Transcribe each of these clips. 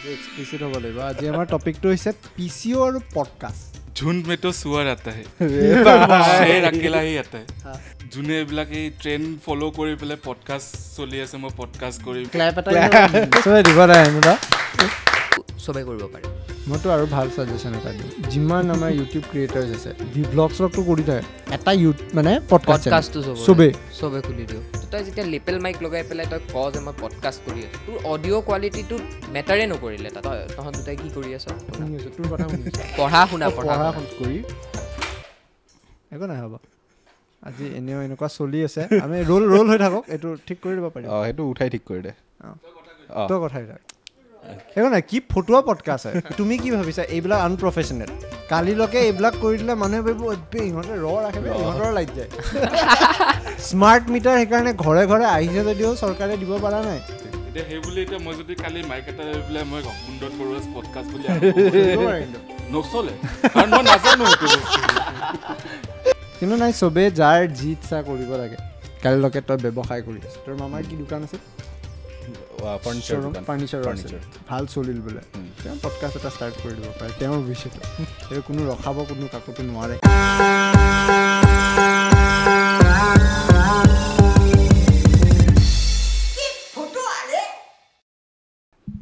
Explicit হ'ব লাগিব। আজি আমাৰ টপিকটো হৈছে পি চি অ' আৰু পডকাষ্ট। ঝুণ্ড মে তো চুৱাৰ আতা হে, শ্বেৰ আকেলা হি আতা হে। যোনে এইবিলাক এই ট্ৰেণ্ড ফ'ল' কৰি পেলাই পডকাষ্ট চলি আছে, মই পডকাষ্ট কৰিম। ক্লেপ এটা চবে দিব লাগে, চবে কৰিব পাৰে। মইতো আৰু ভাল ছাজেশ্যন এটা দিওঁ, যিমান আমাৰ ইউটিউব ক্ৰিয়েটাৰ্ছ আছে, ভ্লগ শ্লগটো কৰি থাকে, এটা মানে পডকাষ্টটো চবে খুলি দিওঁ। তই যেতিয়া লেপেল মাইক লগাই পেলাই তই ক যে মই পডকাষ্ট কৰি আছোঁ, তোৰ অডিঅ' কোৱালিটিটো মেটাৰে নকৰিলে। তাত তহঁত দুটাই কি কৰি আছ? তোৰ কথা পঢ়া শুনা কৰি একো নাই, হ'ব। আজি এনেও এনেকুৱা চলি আছে, আমি ৰোল ৰোল হৈ থাকক, এইটো ঠিক কৰি দিব পাৰিম। অঁ, সেইটো উঠাই ঠিক কৰি দে। তই কথাই থাক, একো নাই। কি ফটুৱা পডকাষ্ট হয়। তুমি কি ভাবিছা এইবিলাক আনপ্ৰফেচনেল? কালিলৈকে এইবিলাক কৰি দিলে মানুহে ভাবিব ইহঁতে ৰ ৰাখে, ইহঁতৰ লাইট যায়। স্মাৰ্ট মিটাৰ সেইকাৰণে ঘৰে ঘৰে আহিছে যদিও চৰকাৰে দিব পৰা নাই। এতিয়া সেই বুলি এতিয়া মই যদি কালি মাইক এটা লৈ পেলাই মই কুন্দন বৰুৱা's পডকাষ্ট বুলি নচলে, কাৰণ মই নাজানো সেইটো বস্তু। কিন্তু নাই, চবেই যাৰ যি ইচ্ছা কৰিব লাগে। কালিলৈকে তই ব্যৱসায় কৰি আছ, তোৰ মামাৰ কি দোকান আছে? ফাৰ্নিচাৰ ভাল চলিল বোলে, তেওঁ পডকাষ্ট এটা ষ্টাৰ্ট কৰি দিব পাৰে তেওঁৰ ভৱিষ্যতে। সেইটো কোনো ৰখাব কোনো কাকোতো নোৱাৰে।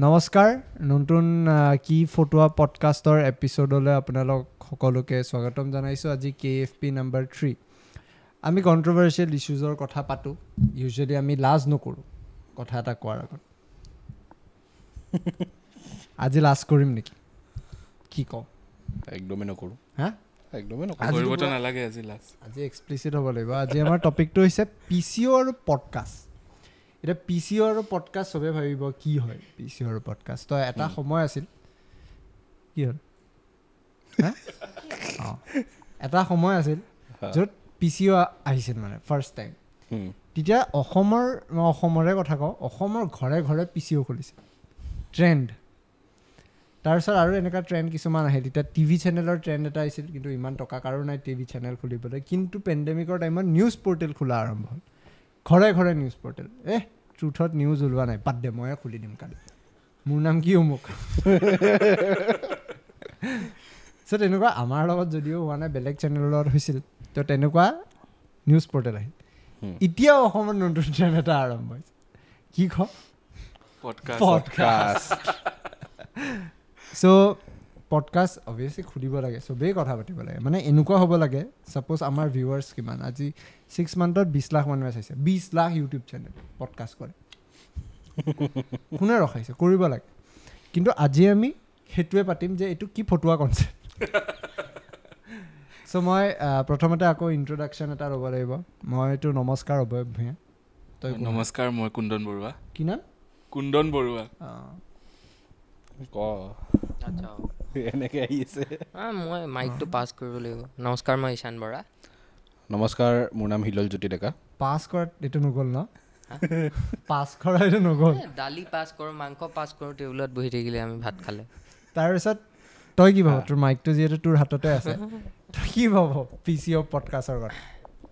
নমস্কাৰ, নতুন কি ফটুৱা পডকাষ্টৰ এপিছ'ডলৈ আপোনালোক সকলোকে স্বাগতম জনাইছোঁ। আজি KFP number 3। আমি কণ্ট্ৰভাৰ্চিয়েল ইছ্যুজৰ কথা পাতোঁ, ইউজুৱেলি আমি লাজ নকৰোঁ কথা এটা কোৱাৰ আগত। আজি লাজ কৰিম নেকি? কি কওঁ? একদমেই নকৰোঁ। হা, একদমেই নকৰোঁ। নালাগে আজি লাজ। আজি এক্সপ্লিচিট হ'ব লাগিব। আজি আমাৰ টপিকটো হৈছে পি চি অ' আৰু পডকাষ্ট। এতিয়া পি চি অ' আৰু পডকাষ্ট চবে ভাবিব কি হয় পি চি অ' আৰু পডকাষ্ট। তো এটা সময় আছিল, কি হ'ল, অঁ, এটা সময় আছিল য'ত পি চি অ' আহিছিল মানে ফাৰ্ষ্ট টাইম। তেতিয়া অসমৰ, মই অসমৰে কথা কওঁ, অসমৰ ঘৰে ঘৰে পি চি অ' খুলিছে, ট্ৰেণ্ড। তাৰপিছত আৰু এনেকুৱা ট্ৰেণ্ড কিছুমান আহে। তেতিয়া টিভি চেনেলৰ ট্ৰেণ্ড এটা আহিছিল, কিন্তু ইমান টকা কাৰো নাই টিভি চেনেল খুলিবলৈ। কিন্তু পেণ্ডেমিকৰ টাইমত নিউজ পৰ্টেল খোলা আৰম্ভ হ'ল, ঘৰে ঘৰে নিউজ পৰ্টেল। ট্ৰুথত নিউজ ওলোৱা নাই, বাদ দে, ময়ে খুলি দিম কালি, মোৰ নাম কি অমুক। চ' তেনেকুৱা আমাৰ লগত যদিও হোৱা নাই, বেলেগ চেনেলৰ লগত হৈছিল। তো তেনেকুৱা নিউজ পৰ্টেল আহিল। এতিয়াও অসমত নতুন ট্ৰেণ্ড এটা আৰম্ভ হৈছে, কি ক? পডকাষ্ট। চ' পডকাষ্ট অভিয়াছলি খুলিব লাগে, চবেই কথা পাতিব লাগে। মানে এনেকুৱা হ'ব লাগে, ছাপ'জ আমাৰ ভিউৱাৰ্ছ কিমান, আজি 6 মান্থত 20 লাখ মানুহে চাইছে, 20 লাখ ইউটিউব চেনেল পডকাষ্ট কৰে, কোনে ৰখাইছে? কৰিব লাগে। কিন্তু আজি আমি সেইটোৱে পাতিম যে এইটো কি ফটুৱা কনচেপ্ট। চ' মই প্ৰথমতে আকৌ ইণ্ট্ৰডাকশ্যন এটা ল'ব লাগিব। মইতো নমস্কাৰ অভয় ভূঞা। তই? নমস্কাৰ, মই কুন্দন বৰুৱা। কি নাম? কুন্দন বৰুৱা। ক এনেকৈ আহি আছে। মই মাইকটো পাছ কৰিব লাগিব। নমস্কাৰ, মই ঈশান বৰা। নমস্কাৰ, মোৰ নাম হিলল জ্যোতি ডেকা। পাছ কৰাত এইটো নগ'ল ন? পাছ কৰা এইটো নগ'ল। দালি পাছ কৰোঁ, মাংস পাছ কৰোঁ, টেবুলত বহি থাকিলে আমি ভাত খালে। তাৰপিছত তই কি ভাব? তোৰ মাইকটো যিহেতু তোৰ হাততে আছে, তই কি ভাব পি চি অ' পডকাষ্টৰ কথা?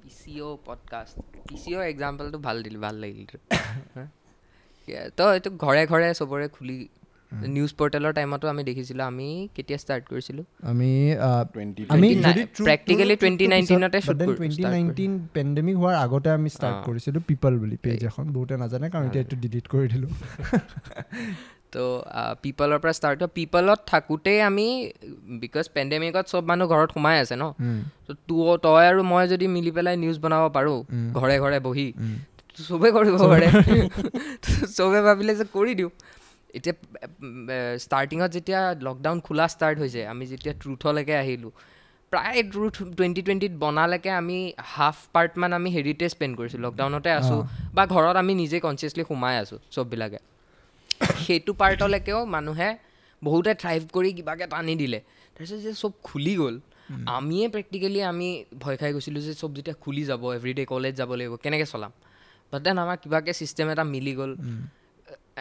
P C O' podcast, P C O' এক্সাম্পলটো ভাল দিলি, ভাল লাগিল। তো এইটো ঘৰে ঘৰে চবৰে খুলি, নিউজ পৰ্টেলৰ টাইমতো আমি দেখিছিলোঁ। আমি কেতিয়া ষ্টাৰ্ট কৰিছিলোঁ? আমি প্ৰেক্টিকেলি 2019তে 2019 পেণ্ডেমিক হোৱাৰ আগতে আমি ষ্টাৰ্ট কৰিছিলোঁ পিপল বুলি পেজ এখন। বহুতে নাজানে কাৰণ এতিয়া এইটো ডিলিট কৰি দিলোঁ। তো পিপলৰ পৰা ষ্টাৰ্ট হয়। পিপলত থাকোঁতেই আমি, because পেণ্ডেমিকত চব মানুহ ঘৰত সোমাই আছে ন, তো তই আৰু মই যদি মিলি পেলাই নিউজ বনাব পাৰোঁ ঘৰে ঘৰে বহি, চবেই কৰিব পাৰে। চবে ভাবিলে যে কৰি দিওঁ। এতিয়া ষ্টাৰ্টিঙত যেতিয়া লকডাউন খোলা ষ্টাৰ্ট হৈছে, আমি যেতিয়া ট্ৰুথলৈকে আহিলোঁ, প্ৰায় ট্ৰুথ 2020 বনালৈকে আমি হাফ পাৰ্টমান আমি হেৰিতে স্পেণ্ড কৰিছোঁ, লকডাউনতে আছোঁ বা ঘৰত আমি নিজে কনচিয়াছলি সোমাই আছোঁ চববিলাকে। সেইটো পাৰ্টলৈকেও মানুহে বহুতে থ্ৰাইভ কৰি কিবাকৈ টানি দিলে। তাৰপিছত যে চব খুলি গ'ল, আমিয়ে প্ৰেক্টিকেলি আমি ভয় খাই গৈছিলোঁ যে চব যেতিয়া খুলি যাব, এভৰিডে কলেজ যাব লাগিব, কেনেকৈ চলাম। বাট then আমাৰ কিবাকৈ ছিষ্টেম এটা মিলি গ'ল,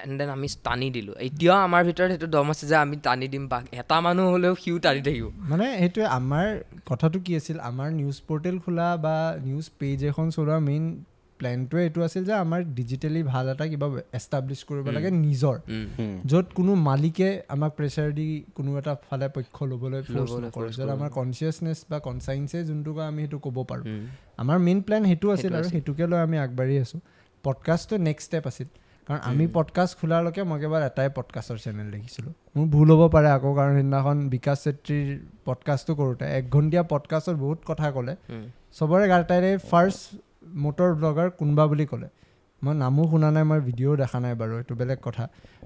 এণ্ড then আমি টানি দিলোঁ। এতিয়াও আমাৰ ভিতৰত সেইটো দম আছে যে আমি টানি দিম, বা এটা মানুহ হ'লেও সিও টানি থাকিব। মানে সেইটোৱে আমাৰ কথাটো কি আছিল, আমাৰ নিউজ পৰ্টেল খোলা বা নিউজ পেজ এখন চলোৱাৰ মেইন প্লেনটোৱে এইটো আছিল যে আমাৰ ডিজিটেলি ভাল এটা কিবা এষ্টাব্লিছ কৰিব লাগে নিজৰ, য'ত কোনো মালিকে আমাক প্ৰেছাৰ দি কোনো এটা ফালে পক্ষ ল'বলৈ ফ'ৰ্চ নকৰে, য'ত আমাৰ কনচিয়াছনেছ বা কনচাইন্সে যোনটো কয় আমি সেইটো ক'ব পাৰোঁ। আমাৰ মেইন প্লেন সেইটো আছিল আৰু সেইটোকে লৈ আমি আগবাঢ়ি আছোঁ। পডকাষ্টটো নেক্সট ষ্টেপ আছিল, কাৰণ আমি পডকাষ্ট খোলালৈকে মই কেৱল এটাই পডকাষ্টৰ চেনেল দেখিছিলোঁ। মোৰ ভুল হ'ব পাৰে আকৌ, কাৰণ সেইদিনাখন বিকাশ চেত্ৰীৰ পডকাষ্টটো কৰোঁতে 1 ঘণ্টীয়া পডকাষ্টত বহুত কথা ক'লে, চবৰে গাতাৰে ফাৰ্ষ্ট মটৰ ব্লগাৰ কোনোবা বুলি ক'লে, মই নামো শুনা নাই, মই ভিডিঅ'ও দেখা নাই বাৰু, এইটো বেলেগ কথা,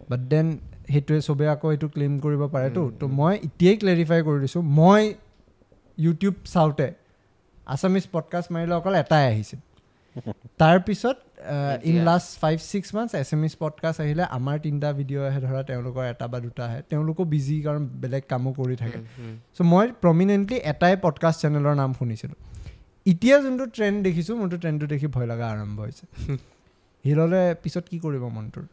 বাট then সেইটোৱে চবেই আকৌ সেইটো ক্লেইম কৰিব পাৰেতো। তো মই এতিয়াই ক্লেৰিফাই কৰি দিছোঁ, মই ইউটিউব চাওঁতে আছামিজ পডকাষ্ট মাৰিলে অকল এটাই আহিছিল। তাৰপিছত in last 5-6 months Assamese podcast আহিলে, আমাৰ 3টা ভিডিঅ' আহে, ধৰা তেওঁলোকৰ 1 বা 2টা আহে, তেওঁলোকো বিজি কাৰণ বেলেগ কামো কৰি থাকে। চ' মই প্ৰমিনেণ্টলি এটাই পডকাষ্ট চেনেলৰ নাম শুনিছিলোঁ। এতিয়া যোনটো ট্ৰেণ্ড দেখিছোঁ, মোৰতো ট্ৰেণ্ডটো দেখি ভয় লগা আৰম্ভ হৈছে। হিললে পিছত কি কৰিব মনটোৰ?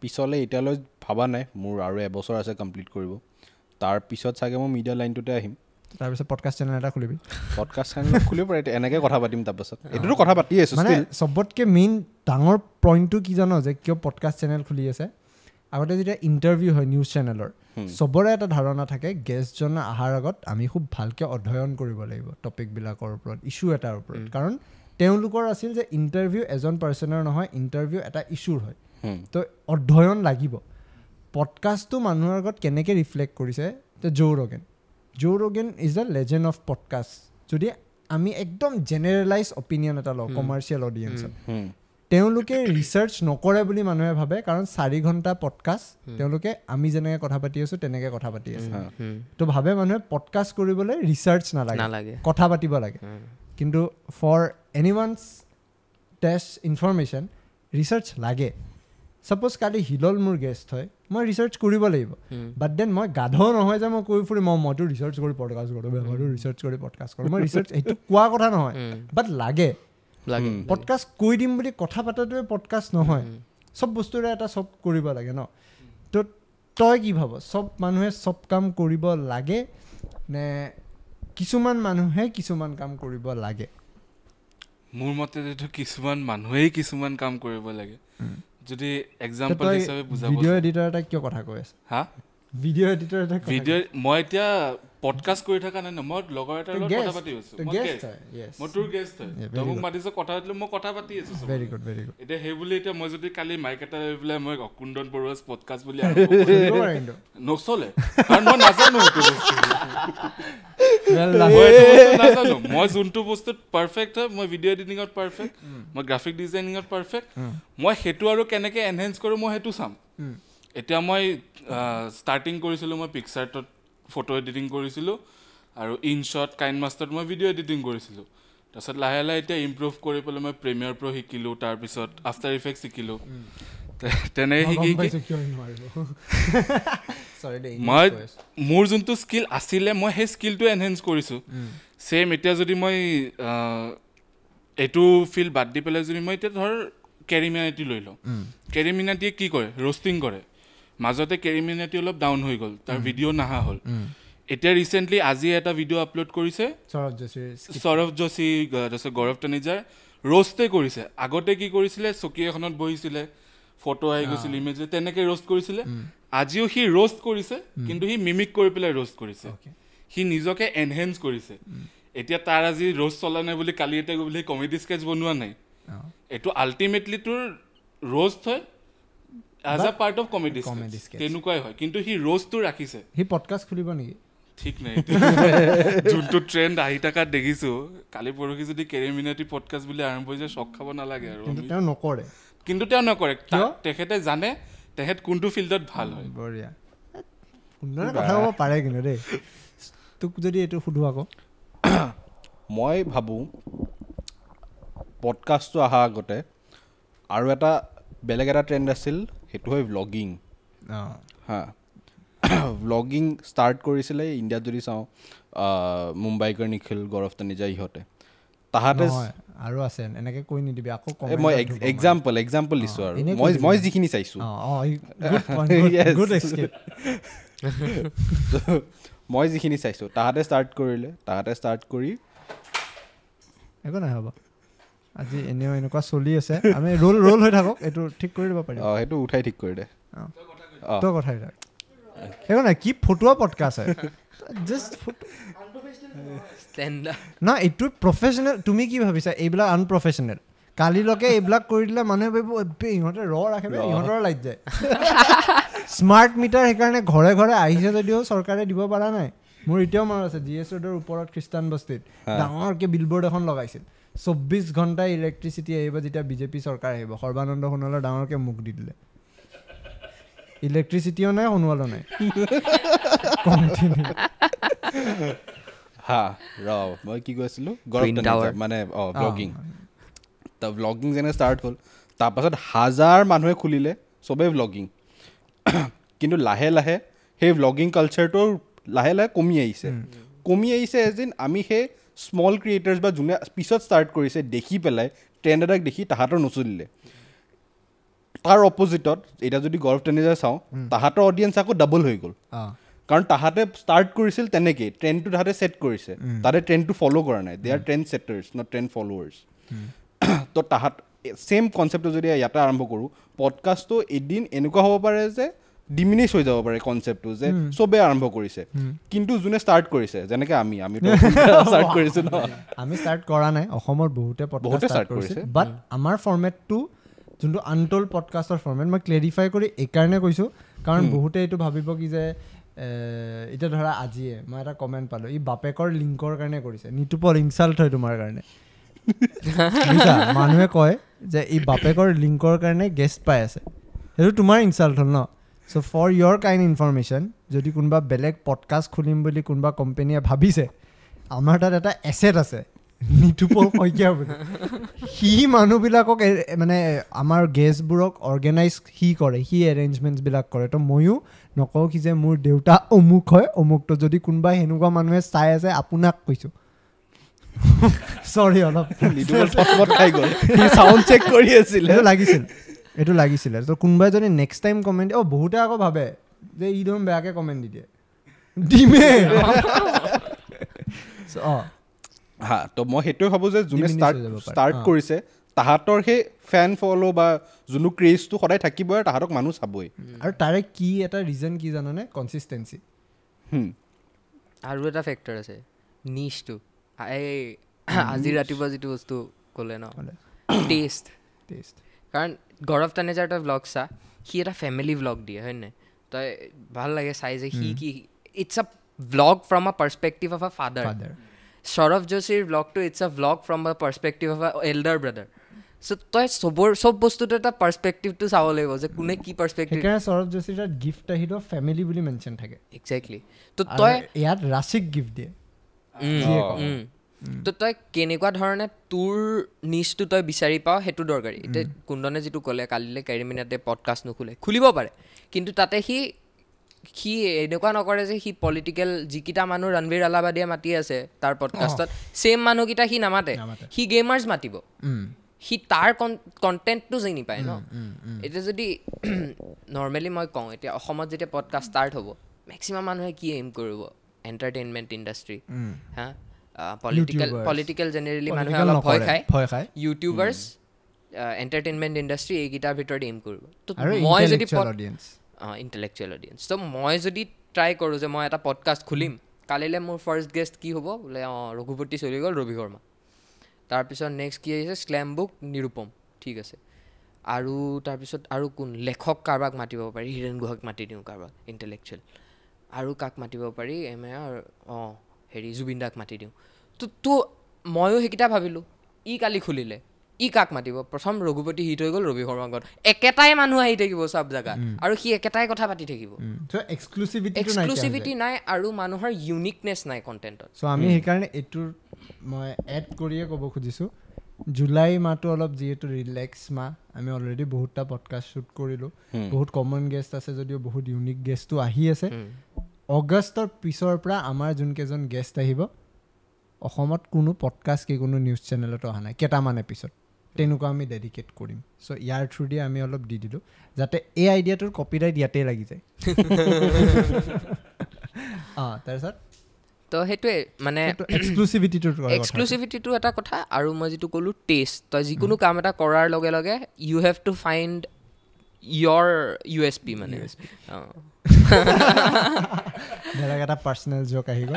পিছলৈ এতিয়ালৈ ভবা নাই, মোৰ আৰু 1 বছৰ আছে কমপ্লিট কৰিব, তাৰপিছত চাগে মই মিডিয়া লাইনটোতে আহিম। তাৰপিছত পডকাষ্ট চেনেল এটা খুলিবি? পডকাষ্ট চেনেল খুলিব পাৰে, এনেকৈ কথা পাতিম। তাৰপাছত এইটোতো কথা পাতি আছোঁ। মানে চবতকৈ মেইন ডাঙৰ পইণ্টটো কি জান, যে কিয় পডকাষ্ট চেনেল খুলি আছে? আগতে যেতিয়া ইণ্টাৰভিউ হয় নিউজ চেনেলৰ, চবৰে এটা ধাৰণা থাকে গেষ্টজন অহাৰ আগত আমি খুব ভালকৈ অধ্যয়ন কৰিব লাগিব টপিকবিলাকৰ ওপৰত, ইছ্যু এটাৰ ওপৰত, কাৰণ তেওঁলোকৰ আছিল যে ইণ্টাৰভিউ এজন পাৰ্চনৰ নহয়, ইণ্টাৰভিউ এটা ইছ্যুৰ হয়, তো অধ্যয়ন লাগিব। পডকাষ্টটো মানুহৰ আগত কেনেকৈ ৰিফ্লেক্ট কৰিছে, যে Joe Rogan is the legend of podcast. যদি আমি একদম জেনেৰেলাইজ অপিনিয়ন এটা লওঁ কমাৰ্চিয়েল অডিয়েঞ্চত, তেওঁলোকে ৰিচাৰ্চ নকৰে বুলি মানুহে ভাবে, কাৰণ 4 ঘণ্টা পডকাষ্ট তেওঁলোকে আমি যেনেকৈ কথা পাতি আছোঁ তেনেকৈ কথা পাতি আছে, তো ভাবে মানুহে পডকাষ্ট কৰিবলৈ ৰিচাৰ্চ নালাগে, কথা পাতিব লাগে। কিন্তু for any one's test information research লাগে। ছাপ'জ কালি হিলল মোৰ গেষ্ট হয়, মই ৰিচাৰ্চ কৰিব লাগিব, বাট then মই গাধ নহয় যে মই কৈ ফুৰিম মইতো ৰিচাৰ্চ কৰি পডকাষ্ট কৰোঁ, মইতো ৰিচাৰ্চ কৰি পডকাষ্ট কৰোঁ। মই ৰিচাৰ্চ সেইটো কোৱা কথা নহয়, বাট লাগে। পডকাষ্ট কৈ দিম বুলি কথা পাতাটোৱে পডকাষ্ট নহয়, চব বস্তুৰে এটা চব কৰিব লাগে ন। তো তই কি ভাব, চব মানুহে চব কাম কৰিব লাগে নে কিছুমান মানুহে কিছুমান কাম কৰিব লাগে? মোৰ মতে কিছুমান মানুহেই কিছুমান কাম কৰিব লাগে। যদি এক্সাম্পল হিচাপে বুজাব, ভিডিঅ' এডিটৰ এটা কিয় কথা কৈ আছে? হা, ভিডিঅ' এডিটৰ এটা ভিডিঅ' মই এতিয়া পডকাষ্ট কৰি থকা নাই ন, মই লগৰ এটাৰ লগত কথা পাতি আছোঁ, মই তোৰ গেষ্ট হয়, তই মোক মাতিছ কথা পাতিলোঁ, মই কথা পাতি আছোঁ। Very good, very good. এতিয়া সেই বুলি এতিয়া মই যদি কালি মাইক এটা লৈ পেলাই মই কুন্দন বৰুৱাছ পডকাষ্ট বুলি নচলে, কাৰণ মই নাজানো সেইটো বস্তু, মই এইটো বস্তু নাজানো। মই যোনটো বস্তুত পাৰফেক্ট হয়, মই ভিডিঅ' এডিটিঙত পাৰফেক্ট, মই গ্ৰাফিক ডিজাইনিঙত পাৰফেক্ট, মই সেইটো আৰু কেনেকৈ এনহেঞ্চ কৰোঁ মই সেইটো চাম। এতিয়া মই ষ্টাৰ্টিং কৰিছিলোঁ, মই পিকচাৰটোত ফটো এডিটিং কৰিছিলোঁ আৰু ইনশ্বট কাইন মাষ্টাৰত মই ভিডিঅ' এডিটিং কৰিছিলোঁ। তাৰপিছত লাহে লাহে এতিয়া ইম্প্ৰুভ কৰি পেলাই মই প্ৰিমিয়াৰ প্ৰ' শিকিলোঁ, তাৰপিছত আফটাৰ ইফেক্ট শিকিলোঁ, তেনেকৈ শিকি মই মোৰ যোনটো স্কিল আছিলে মই সেই স্কিলটো এনহেঞ্চ কৰিছোঁ। ছেইম এতিয়া যদি মই এইটো ফিল্ড বাদ দি পেলাই যদি মই এতিয়া ধৰ কেৰিমিনাটি লৈ লওঁ, কেৰিমিনাটিয়ে কি কৰে, ৰ'ষ্টিং কৰে। মাজতে কেৰিমিনাটি অলপ ডাউন হৈ গ'ল, তাৰ ভিডিঅ' নাহা হ'ল। এতিয়া ৰিচেণ্টলি আজি এটা ভিডিঅ' আপলোড কৰিছে সৌৰভ যোশী, তাৰপিছত গৌৰৱ তানিজাৰ ৰ'ষ্টে কৰিছে। আগতে কি কৰিছিলে, চকী এখনত বহিছিলে, ফটো আহি গৈছিল, ইমেজ, তেনেকৈ ৰ'ষ্ট কৰিছিলে। আজিও সি ৰ'ষ্ট কৰিছে, কিন্তু সি মিমিক কৰি পেলাই ৰ'ষ্ট কৰিছে, সি নিজকে এনহেঞ্চ কৰিছে। এতিয়া তাৰ আজি ৰ'ষ্ট চলা নাই বুলি কালি এটা গৈ পেলাই কমেডি স্কেচ বনোৱা নাই, এইটো আল্টিমেটলি তোৰ ৰ'ষ্ট হয় as a part of comedy sketch, তেনেকুৱাই হয়, কিন্তু সি ৰ'ষ্টটো ৰাখিছে। সি পডকাষ্ট খুলিব নেকি ঠিক নাই, যোনটো ট্ৰেণ্ড আহি থকাত দেখিছোঁ। কালি পৰহি যদি কেৰিমিনাটি পডকাষ্ট বুলি আৰম্ভ হৈ যায়, চক খাব নালাগে আৰু। তেওঁ নকৰে, কিন্তু তেওঁ নকৰে, তেখেতে জানে তেখেত কোনটো ফিল্ডত ভাল হয়। বঢ়িয়া, সুন্দৰ কথা ক'ব পাৰে কিন্তু দেই। তোক যদি এইটো সোধোঁ আকৌ, মই ভাবোঁ পডকাষ্টটো অহাৰ আগতে আৰু এটা বেলেগ এটা ট্ৰেণ্ড আছিল, সেইটো হয় ভ্লগিং। হা, ভ্লগিং ষ্টাৰ্ট কৰিছিলে ইণ্ডিয়াত যদি চাওঁ, মুম্বাইকৰ নিখিল, গৌৰৱ তানিজা, ইহঁতে তাহাঁতে আৰু আছে, এনেকৈ কৈ নিদিবি আকৌ। মই এক্সাম্পল দিছোঁ আৰু মই যিখিনি চাইছোঁ, মই যিখিনি চাইছোঁ তাহাঁতে ষ্টাৰ্ট কৰিলে, তাহাঁতে ষ্টাৰ্ট কৰি একো নাই হ'ব, আজি এনেও এনেকুৱা চলি আছে, আমি ৰোল ৰোল হৈ থাকক, এইটো ঠিক কৰি দিব পাৰিম। অঁ, সেইটো উঠাই ঠিক কৰি দে। তই কথা থাক, একো নাই। কি ফটোৱা পডকাষ্ট হয়, জাষ্ট না, এইটো প্ৰফেচনেল। তুমি কি ভাবিছা এইবিলাক আনপ্ৰফেচনেল? কালিলৈকে এইবিলাক কৰি দিলে মানুহে ভাবিব ইহঁতে ৰ ৰাখে, ইহঁতৰ লাইট যায়। স্মাৰ্ট মিটাৰ সেইকাৰণে ঘৰে ঘৰে আহিছে যদিও চৰকাৰে দিব পৰা নাই। মোৰ এতিয়াও মনত আছে, জি এছ ৰোডৰ ওপৰত খ্ৰীষ্টান বস্তিত ডাঙৰকৈ বিলবৰ্ড এখন লগাইছিল, 24 ঘণ্টা ইলেক্ট্ৰিচিটি আহিব যেতিয়া বিজেপি চৰকাৰ আহিব। সৰ্বানন্দ সোণোৱালৰ ডাঙৰকৈ মুখ দি দিলে, ইলেক্ট্ৰিচিটিও নাই সোণোৱালো নাই। হা, ৰ, মই কি কৈছিলোঁ, মানে অঁ ব্লগিং। ব্লগিং যেনে ষ্টাৰ্ট হ'ল, তাৰপাছত হাজাৰ মানুহে খুলিলে চবেই ব্লগিং। কিন্তু লাহে লাহে সেই ব্লগিং কালচাৰটো লাহে লাহে কমি আহিছে, কমি আহিছে। এজ ইন আমি সেই স্মল ক্ৰিয়েটাৰ্ছ বা যোনে পিছত ষ্টাৰ্ট কৰিছে দেখি পেলাই ট্ৰেণ্ড এটাক দেখি তাহাঁতৰ নচলিলে। তাৰ অপজিটত এতিয়া যদি গৌৰৱ তানেজা চাওঁ, তাহাঁতৰ অডিয়েঞ্চ আকৌ ডাবল হৈ গ'ল, কাৰণ তাহাঁতে ষ্টাৰ্ট কৰিছিল তেনেকেই, ট্ৰেণ্ডটো তাহাঁতে ছেট কৰিছে, তাহাঁতে ট্ৰেণ্ডটো ফ'ল' কৰা নাই। They are trend setters, not trend followers. তো তাহাঁত ছেইম কনচেপ্টটো যদি ইয়াতে আৰম্ভ কৰোঁ, পডকাষ্টটো এদিন এনেকুৱা হ'ব পাৰে যে ডিমিনিছ হৈ যাব পাৰে কনচেপ্টটো, যে চবেই আৰম্ভ কৰিছে, কিন্তু যোনে ষ্টাৰ্ট কৰিছে, যেনেকৈ আমি ষ্টাৰ্ট কৰিছোঁ ন, আমি ষ্টাৰ্ট কৰা নাই, অসমৰ বহুতে পডকাষ্ট ষ্টাৰ্ট কৰিছে, বাট আমাৰ ফৰ্মেটটো যোনটো আনটল পডকাষ্টৰ ফৰ্মেট, মই ক্লেৰিফাই কৰি এইকাৰণে কৈছোঁ কাৰণ বহুতে এইটো ভাবিব কি যে এতিয়া ধৰা আজিয়ে মই এটা কমেণ্ট পালোঁ, ই বাপেকৰ লিংকৰ কাৰণে কৰিছে, নিতুপল ইনচাল্ট হয় তোমাৰ কাৰণে। মানুহে কয় যে ই বাপেকৰ লিংকৰ কাৰণে গেষ্ট পাই আছে, সেইটো তোমাৰ ইনচাল্ট হ'ল ন। So for your kind information, যদি কোনোবা বেলেগ পডকাষ্ট খুলিম বুলি কোনোবা কোম্পেনীয়ে ভাবিছে, আমাৰ তাত এটা এছেট আছে নিতুপল শইকীয়া বুলি, সি মানুহবিলাকক মানে আমাৰ গেষ্টবোৰক অৰ্গেনাইজ সি কৰে, সি এৰেঞ্জমেণ্টছবিলাক কৰে। তো ময়ো নকওঁ কি যে মোৰ দেউতা অমুক হয় অমুকটো, যদি কোনোবাই সেনেকুৱা মানুহে চাই আছে আপোনাক কৈছোঁ, চৰি অলপ লাগিছিল, এইটো লাগিছিলে। তো কোনোবাই যদি নেক্সট টাইম কমেণ্ট, অঁ বহুতে আকৌ ভাবে যে ই দেখোন বেয়াকৈ কমেণ্ট দি দিয়ে, দিমে। অঁ হা, তো মই সেইটোৱে ভাবোঁ যে যোনে ষ্টাৰ্ট কৰিছে তাহাঁতৰ সেই ফেন ফ'ল' বা যোনটো ক্ৰেজটো সদায় থাকিবই আৰু তাহাঁতক মানুহ চাবই। আৰু তাৰে কি এটা ৰিজন কি জানানে? কনচিষ্টেঞ্চি। আৰু এটা ফেক্টৰ আছে নিচটো, এই আজি ৰাতিপুৱা যিটো বস্তু ক'লে ন, টেষ্ট। টেষ্ট, কাৰণ গৌৰৱ তানেজাৰ তই ভ্লগ চা, সি এটা ফেমিলি ভ্লগ দিয়ে হয় নাই, তই ভাল লাগে চাই যে সি কি, it's a vlog from a perspective of a father. Saurabh যোশীৰ ভ্লগটো it's a vlog from a perspective of a elder brother. So তই চব বস্তুটো এটা পাৰ্চপেক্টিভটো চাব লাগিব যে কোনে কি পাৰ্চপেক্টিভ। সেইকাৰণে সৌৰভ যোশীৰ তাত গিফ্ট আহিলেও ফেমিলি বুলি মেনশ্যন থাকে। এক্সেক্টলি। তো তই ইয়াত ৰাশিক গিফ্ট দিয়ে। তো তই কেনেকুৱা ধৰণে তোৰ নিচটো তই বিচাৰি পাওঁ সেইটো দৰকাৰী। এতিয়া কুন্দনে যিটো ক'লে কালিলৈ কেৰিমিনাতে পডকাষ্ট নোখোলে, খুলিব পাৰে, কিন্তু তাতে সি সি এনেকুৱা নকৰে যে সি পলিটিকেল যিকেইটা মানুহ ৰণবীৰ আলাবাদিয়ে মাতি আছে তাৰ পডকাষ্টত, ছেইম মানুহকেইটা সি নামাতে, সি গেমাৰ্ছ মাতিব, সি তাৰ কণ্টেণ্টটো চিনি পায় ন। এতিয়া যদি নৰ্মেলি মই কওঁ, এতিয়া অসমত যেতিয়া পডকাষ্ট ষ্টাৰ্ট হ'ব, মেক্সিমাম মানুহে কি এইম কৰিব? এণ্টাৰটেইনমেণ্ট ইণ্ডাষ্ট্ৰী, হা, পলিটিকেল জেনেৰেলি মানুহে অলপ ভয় খায়, ইউটিউবাৰ্ছ, এণ্টাৰটেইনমেণ্ট ইণ্ডাষ্ট্ৰী, এইকেইটাৰ ভিতৰত এইম কৰিব। তো মই যদি ইণ্টেলেকচুৱেল অডিয়েঞ্চ, ত' মই যদি ট্ৰাই কৰোঁ যে মই এটা পডকাষ্ট খুলিম, কালিলৈ মোৰ ফাৰ্ষ্ট গেষ্ট কি হ'ব? বোলে অঁ ৰঘুপতি চলি গ'ল, ৰবি শৰ্মা, তাৰপিছত নেক্সট কি আহিছে? শ্লেম বুক নিৰুপম, ঠিক আছে, আৰু তাৰপিছত আৰু কোন লেখক কাৰোবাক মাতিব পাৰি, হীৰেণ গুহাক মাতি দিওঁ, কাৰোবাক ইণ্টেলেকচুৱেল, আৰু কাক মাতিব পাৰি, এম এ অঁ হেৰি জুবিন দাক মাতি দিওঁ। তো ময়ো সেইকেইটা ভাবিলোঁ, ই কালি খুলিলে ই কাক মাতিব? প্ৰথম ৰঘুপতি হিট হৈ গ'ল, ৰবি শৰ্মা গ'ল, একেটাই মানুহ আহি থাকিব চব জেগাত আৰু সি একেটাই কথা পাতি থাকিব। এক্সক্লুচিভিটি নাই আৰু মানুহৰ ইউনিকনেছ নাই কণ্টেণ্টত। চ' আমি সেইকাৰণে এইটোৰ মই এড কৰিয়ে ক'ব খুজিছোঁ, জুলাই মাহটো অলপ যিহেতু ৰিলেক্স মাহ, আমি অলৰেডি বহুতটা পডকাষ্ট শ্বুট কৰিলোঁ, বহুত কমন গেষ্ট আছে যদিও বহুত ইউনিক গেষ্টো আহি আছে। অগষ্টৰ পিছৰ পৰা আমাৰ যোনকেইজন গেষ্ট আহিব, অসমত কোনো পডকাষ্ট কি কোনো নিউজ চেনেলতো অহা নাই, কেইটামান এপিছড তেনেকুৱা আমি ডেডিকেট কৰিম। চ' ইয়াৰ থ্ৰু দিয়ে আমি অলপ দি দিলোঁ যাতে এই আইডিয়াটোৰ কপিৰাইট ইয়াতেই লাগি যায়। অঁ, তাৰপিছত তো সেইটোৱে মানে এক্সক্লুচিভিটিটো এটা কথা। আৰু মই যিটো ক'লোঁ টেষ্ট, তই যিকোনো কাম এটা কৰাৰ লগে লগে you have to find your USP মানে। বেলেগ এটা পাৰ্চনেল জোক আহি গ'ল।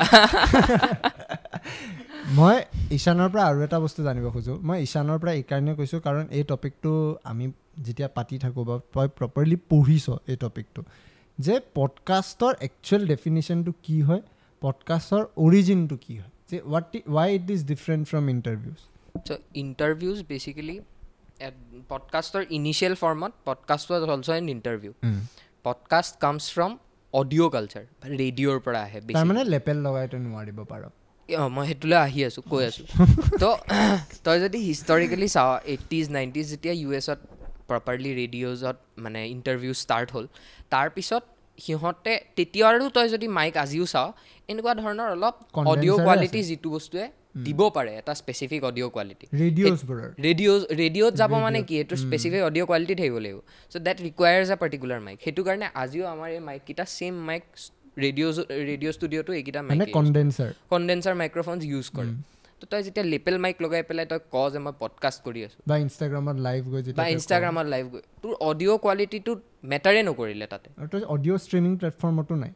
মই ঈশানৰ পৰা আৰু এটা বস্তু জানিব খোজোঁ। মই ঈশানৰ পৰা এইকাৰণে কৈছোঁ কাৰণ এই টপিকটো আমি যেতিয়া পাতি থাকোঁ বা তই প্ৰপাৰলি পঢ়িছ এই টপিকটো, যে পডকাষ্টৰ একচুৱেল ডেফিনেশ্যনটো কি হয়, পডকাষ্টৰ অৰিজিনটো কি হয়, যে why it is different from interviews. So interviews basically পডকাষ্টৰ initial ফৰ্মত podcast was also an interview. Podcast comes from audio culture, ৰেডিঅ'ৰ পৰা আহে। তাৰমানে লেপেল লগাইতো নোৱাৰিব পাৰ। অঁ, মই সেইটোলৈ আহি আছোঁ, কৈ আছোঁ। তো তই যদি হিষ্টৰিকেলি চাওঁ, 80s 90s যেতিয়া ইউ এছত প্ৰপাৰলি ৰেডিঅ'জত মানে ইণ্টাৰভিউ ষ্টাৰ্ট হ'ল, তাৰপিছত সিহঁতে তেতিয়া আৰু তই যদি মাইক আজিও চাওঁ, এনেকুৱা ধৰণৰ অলপ অডিঅ' কোৱালিটি যিটো বস্তুৱে দিব পাৰে, এটা স্পেচিফিক অডিঅ' কোৱালিটি। ৰেডিঅ'ত যাব মানে কি, এইটো স্পেচিফিক অডিঅ' কোৱালিটি থাকিব লাগিব। So that requires a particular mic. সেইটো কাৰণে আজিও আমাৰ এই মাইককেইটা ছেইম মাইক ৰেডিঅ' ষ্টুডিঅ'টো এইকেইটা মাইক কণ্ডেনচাৰ মাইক্ৰফোনছ ইউজ কৰে। তো তই যেতিয়া লেপেল মাইক লগাই পেলাই তই ক যে মই পডকাষ্ট কৰি আছোঁ বা ইনষ্টাগ্ৰামত লাইভ গৈ, তোৰ অডিঅ' কোৱালিটিটো মেটাৰে নকৰিলে তাতে। অডিঅ' ষ্ট্ৰিমিং প্লেটফৰ্মতো নাই।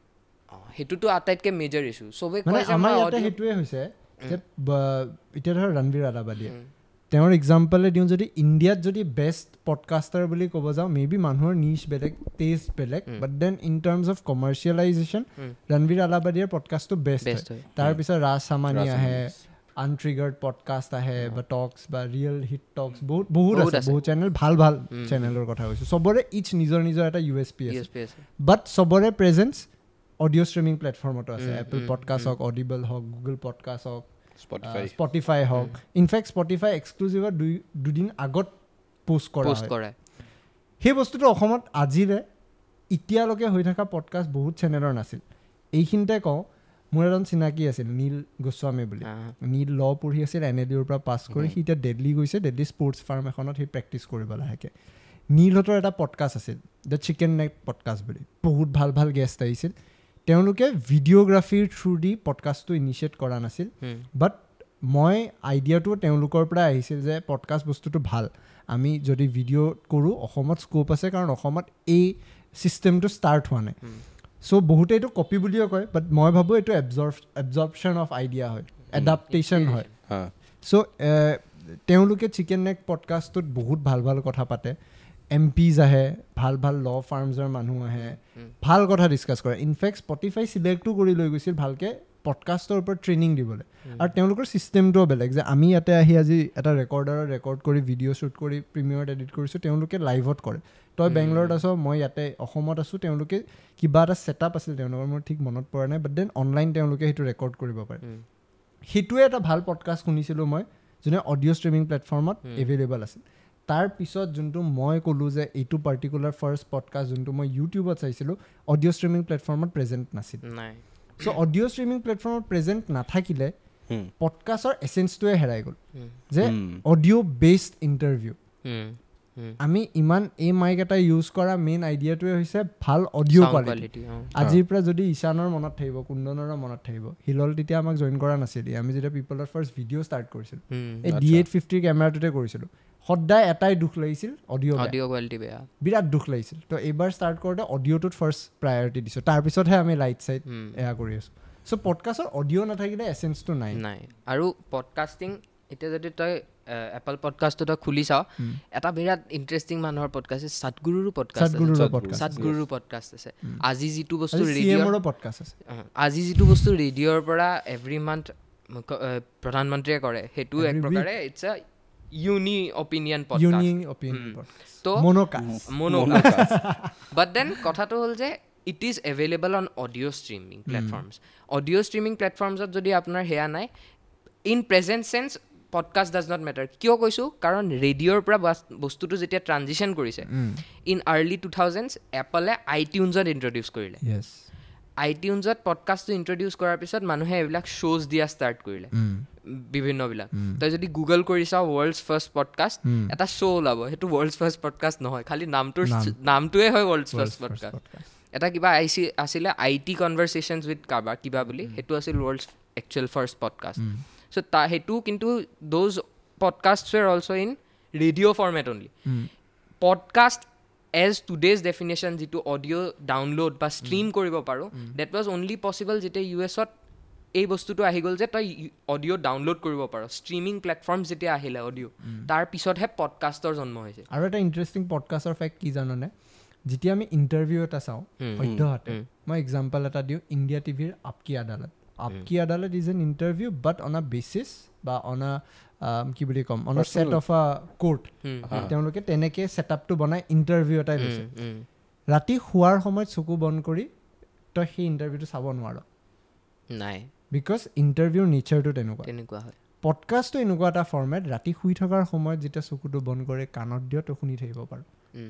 সেইটোতো আটাইতকৈ মেজৰ ইছ্যু। চবেই কয় যে আমাৰ ইয়াতে সেইটোৱে হৈছে যে এতিয়া ধৰ ৰণবীৰ আলাবাদীয়ে, তেওঁৰ এক্সাম্পলে দিওঁ, যদি ইণ্ডিয়াত যদি বেষ্ট পডকাষ্টাৰ বুলি ক'ব যাওঁ, মে বি মানুহৰ নিচ বেলেগ, টেষ্ট বেলেগ, but then in terms of commercialization Ranveer আলাবাদীৰ পডকাষ্টটো best হয়। তাৰপিছত ৰাজ সামানী আহে, আনট্ৰিগাৰ্ড পডকাষ্ট আহে, বা টক্স বা ৰিয়েল হিট টক্স, বহুত বহুত আছে, বহুত চেনেল, ভাল ভাল চেনেলৰ কথা কৈছোঁ। চবৰে ইচ নিজৰ নিজৰ এটা ইউ এছ পি আছে, বাট চবৰে প্ৰেজেঞ্চ অডিঅ' ষ্ট্ৰিমিং প্লেটফৰ্মতো আছে। এপল পডকাষ্ট হওক, অডিবল হওক, গুগল পডকাষ্ট হওক, স্পটিফাই হওক। ইনফেক্ট স্পটিফাই এক্সক্লুচিভত দুদিন আগত পোষ্ট কৰা। সেই বস্তুটো অসমত আজিৰে এতিয়ালৈকে হৈ থকা পডকাষ্ট বহুত চেনেলৰ নাছিল। এইখিনিতে কওঁ, মোৰ এজন চিনাকি আছিল নীল গোস্বামী বুলি। নীল ল পঢ়ি আছিল, এন এল ইউৰ পৰা পাছ কৰি সি এতিয়া দিল্লী গৈছে, দিল্লী স্পৰ্টছ ফাৰ্ম এখনত সি প্ৰেক্টিছ কৰিব লাহেকৈ। নীলহঁতৰ এটা পডকাষ্ট আছিল, the chicken নেক পডকাষ্ট বুলি, বহুত ভাল ভাল গেষ্ট আহিছিল। তেওঁলোকে ভিডিঅ'গ্ৰাফীৰ থ্ৰু দি পডকাষ্টটো ইনিচিয়েট কৰা নাছিল, বাট মই আইডিয়াটো তেওঁলোকৰ পৰা আহিছিল যে পডকাষ্ট বস্তুটো ভাল, আমি যদি ভিডিঅ' কৰোঁ অসমত স্ক'প আছে, কাৰণ অসমত এই ছিষ্টেমটো ষ্টাৰ্ট হোৱা নাই। চ' বহুতে এইটো কপি বুলিও কয়, বাট মই ভাবোঁ এইটো এবজৰ্পশ্যন অফ আইডিয়া হয়, এডাপ্টেশ্যন হয়। চ' তেওঁলোকে চিকেন নেক পডকাষ্টটোত বহুত ভাল ভাল কথা পাতে, এম পিজ আহে, ভাল ভাল ল ফাৰ্মছৰ মানুহ আহে, ভাল কথা ডিছকাছ কৰে। ইনফেক্ট স্পটিফাই চিলেক্টো কৰি লৈ গৈছিল ভালকৈ পডকাষ্টৰ ওপৰত ট্ৰেইনিং দিবলৈ। আৰু তেওঁলোকৰ ছিষ্টেমটোও বেলেগ, যে আমি ইয়াতে আহি আজি এটা ৰেকৰ্ডাৰত ৰেকৰ্ড কৰি ভিডিঅ' শ্বুট কৰি প্ৰিমিয়াৰত এডিট কৰিছোঁ, তেওঁলোকে লাইভত কৰে। তই বেংগলোৰত আছ, মই ইয়াতে অসমত আছোঁ, তেওঁলোকে কিবা এটা ছেটআপ আছিল তেওঁলোকৰ, মোৰ ঠিক মনত পৰা নাই, বাট then online তেওঁলোকে সেইটো ৰেকৰ্ড কৰিব পাৰে। সেইটোৱে এটা ভাল পডকাষ্ট শুনিছিলোঁ মই, যোনে অডিঅ' ষ্ট্ৰিমিং প্লেটফৰ্মত এভেইলেবল আছিল। তাৰপিছত যোনটো মই ক'লোঁ যে এইটো পাৰ্টিকুলাৰ ফাৰ্ষ্ট পডকাষ্ট যোনটো মই ইউটিউবত চাইছিলোঁ, অডিঅ' ষ্ট্ৰিমিং প্লেটফৰ্মত প্ৰেজেণ্ট নাছিল। চ' অডিঅ' ষ্ট্ৰিমিং প্লেটফৰ্মত প্ৰেজেণ্ট নাথাকিলে পডকাষ্টৰ এচেঞ্চটোৱে হেৰাই গ'ল, যে অডিঅ' বেছড ইণ্টাৰভিউ। আমি ইমান এই মাইক এটা ইউজ কৰা মেইন আইডিয়াটোৱে হৈছে ভাল অডিঅ' কোৱালিটি। আজিৰ পৰা যদি ঈশানৰ মনত থাকিব, কুন্দনৰো মনত থাকিব, হিলল তেতিয়া আমাক জইন কৰা নাছিল, আমি যেতিয়া পিপলৰ ফাৰ্ষ্ট ভিডিঅ' ষ্টাৰ্ট কৰিছিলোঁ, এই D850 কেমেৰাটোতে কৰিছিলোঁ, সদায় এটাই দুখ লাগিছিল, অডিঅ' কোৱালিটি বেয়া, বিৰাট দুখ লাগিছিল। তো এইবাৰ ষ্টাৰ্ট কৰোঁতে অডিঅ'টোত ফাৰ্ষ্ট প্ৰায়ৰিটি দিছোঁ, তাৰপিছতহে আমি লাইট চাইট এয়া কৰি আছোঁ। চ' পডকাষ্টৰ অডিঅ' নাথাকিলে এচেঞ্চটো নাই। নাই। আৰু পডকাষ্টিং এতিয়া যদি তই এপল পডকাষ্টটো তই খুলি চাওঁ, এটা বিৰাট ইণ্টাৰেষ্টিং মানুহৰ পডকাষ্ট আছে, সদগুৰুৰো পডকাষ্ট আছে, সদগুৰুৰো পডকাষ্ট আছে। আজি যিটো বস্তু ৰেডিঅ'ৰ পডকাষ্ট আছে, আজি যিটো বস্তু ৰেডিঅ'ৰ পৰা এভৰি মান্থ প্ৰধানমন্ত্ৰীয়ে কৰে, সেইটো এক প্ৰকাৰে it's a uni opinion podcast, তো মনোকাষ্ট। বাট then কথাটো হ'ল যে it is available on audio streaming platforms. Audio streaming প্লেটফৰ্মছত যদি আপোনাৰ সেয়া নাই, in present sense podcast does not matter. কিয় কৈছোঁ, কাৰণ ৰেডিঅ'ৰ পৰা বস্তুটো যেতিয়া ট্ৰানজিশ্যন কৰিছে ইন আৰ্লি 2000s, এপলে আইটিউনছত ইণ্ট্ৰডিউচ কৰিলে। আইটিউনছত পডকাষ্টটো ইণ্ট্ৰডিউচ কৰাৰ পিছত মানুহে এইবিলাক শ্ব'জ দিয়া ষ্টাৰ্ট কৰিলে বিভিন্নবিলাক। তই যদি গুগল কৰি চাওঁ ৱৰ্ল্ডছ ফাৰ্ষ্ট পডকাষ্ট, এটা শ্ব' ওলাব, সেইটো ৱৰ্ল্ডছ ফাৰ্ষ্ট পডকাষ্ট নহয়, খালি নামটোৱে হয় ৱৰ্ল্ডছ ফাৰ্ষ্ট পডকাষ্ট। এটা কিবা আইচি আছিলে I T কনভাৰ্চেশ্যনছ উইথ কাৰোবাৰ কিবা বুলি, সেইটো আছিল world's actual first podcast. So সেইটো কিন্তু those podcast were also in radio format only. Podcast as today's definition যিটো অডিঅ' ডাউনলোড বা ষ্ট্ৰীম কৰিব পাৰোঁ, that was only possible যেতিয়া ইউ এছত এই বস্তুটো আহি গ'ল যে তই অডিঅ' ডাউনলোড কৰিব পাৰ। ষ্ট্ৰীমিং প্লেটফৰ্ম যেতিয়া আহিলে অডিঅ', তাৰ পিছতহে পডকাষ্টৰ জন্ম হৈছে। আৰু এটা ইণ্টাৰেষ্টিং পডকাষ্টৰ ফেক্ট কি জাননে, যেতিয়া আমি ইণ্টাৰভিউ এটা চাওঁ সদ্যহতে, মই এক্সাম্পল এটা দিওঁ, ইণ্ডিয়া টিভিৰ Aap Ki Adalat. Aap Ki Adalat is an interview but on a basis বা অন আ কি বুলি ক'ম, on a set of a court. তেওঁলোকে তেনেকৈ ছেটআপটো বনাই ইণ্টাৰভিউ এটাই লৈছে। ৰাতি শোৱাৰ সময়ত চকু বন্ধ কৰি তই সেই ইণ্টাৰভিউটো চাব নোৱাৰ, নাই, because ইণ্টাৰভিউৰ নেচাৰটো তেনেকুৱা তেনেকুৱা হয়। পডকাষ্টটো এনেকুৱা এটা ফৰ্মেট, ৰাতি শুই থকাৰ সময়ত যেতিয়া চকুটো বন্ধ কৰি কাণত দিয় তই শুনি থাকিব পাৰ,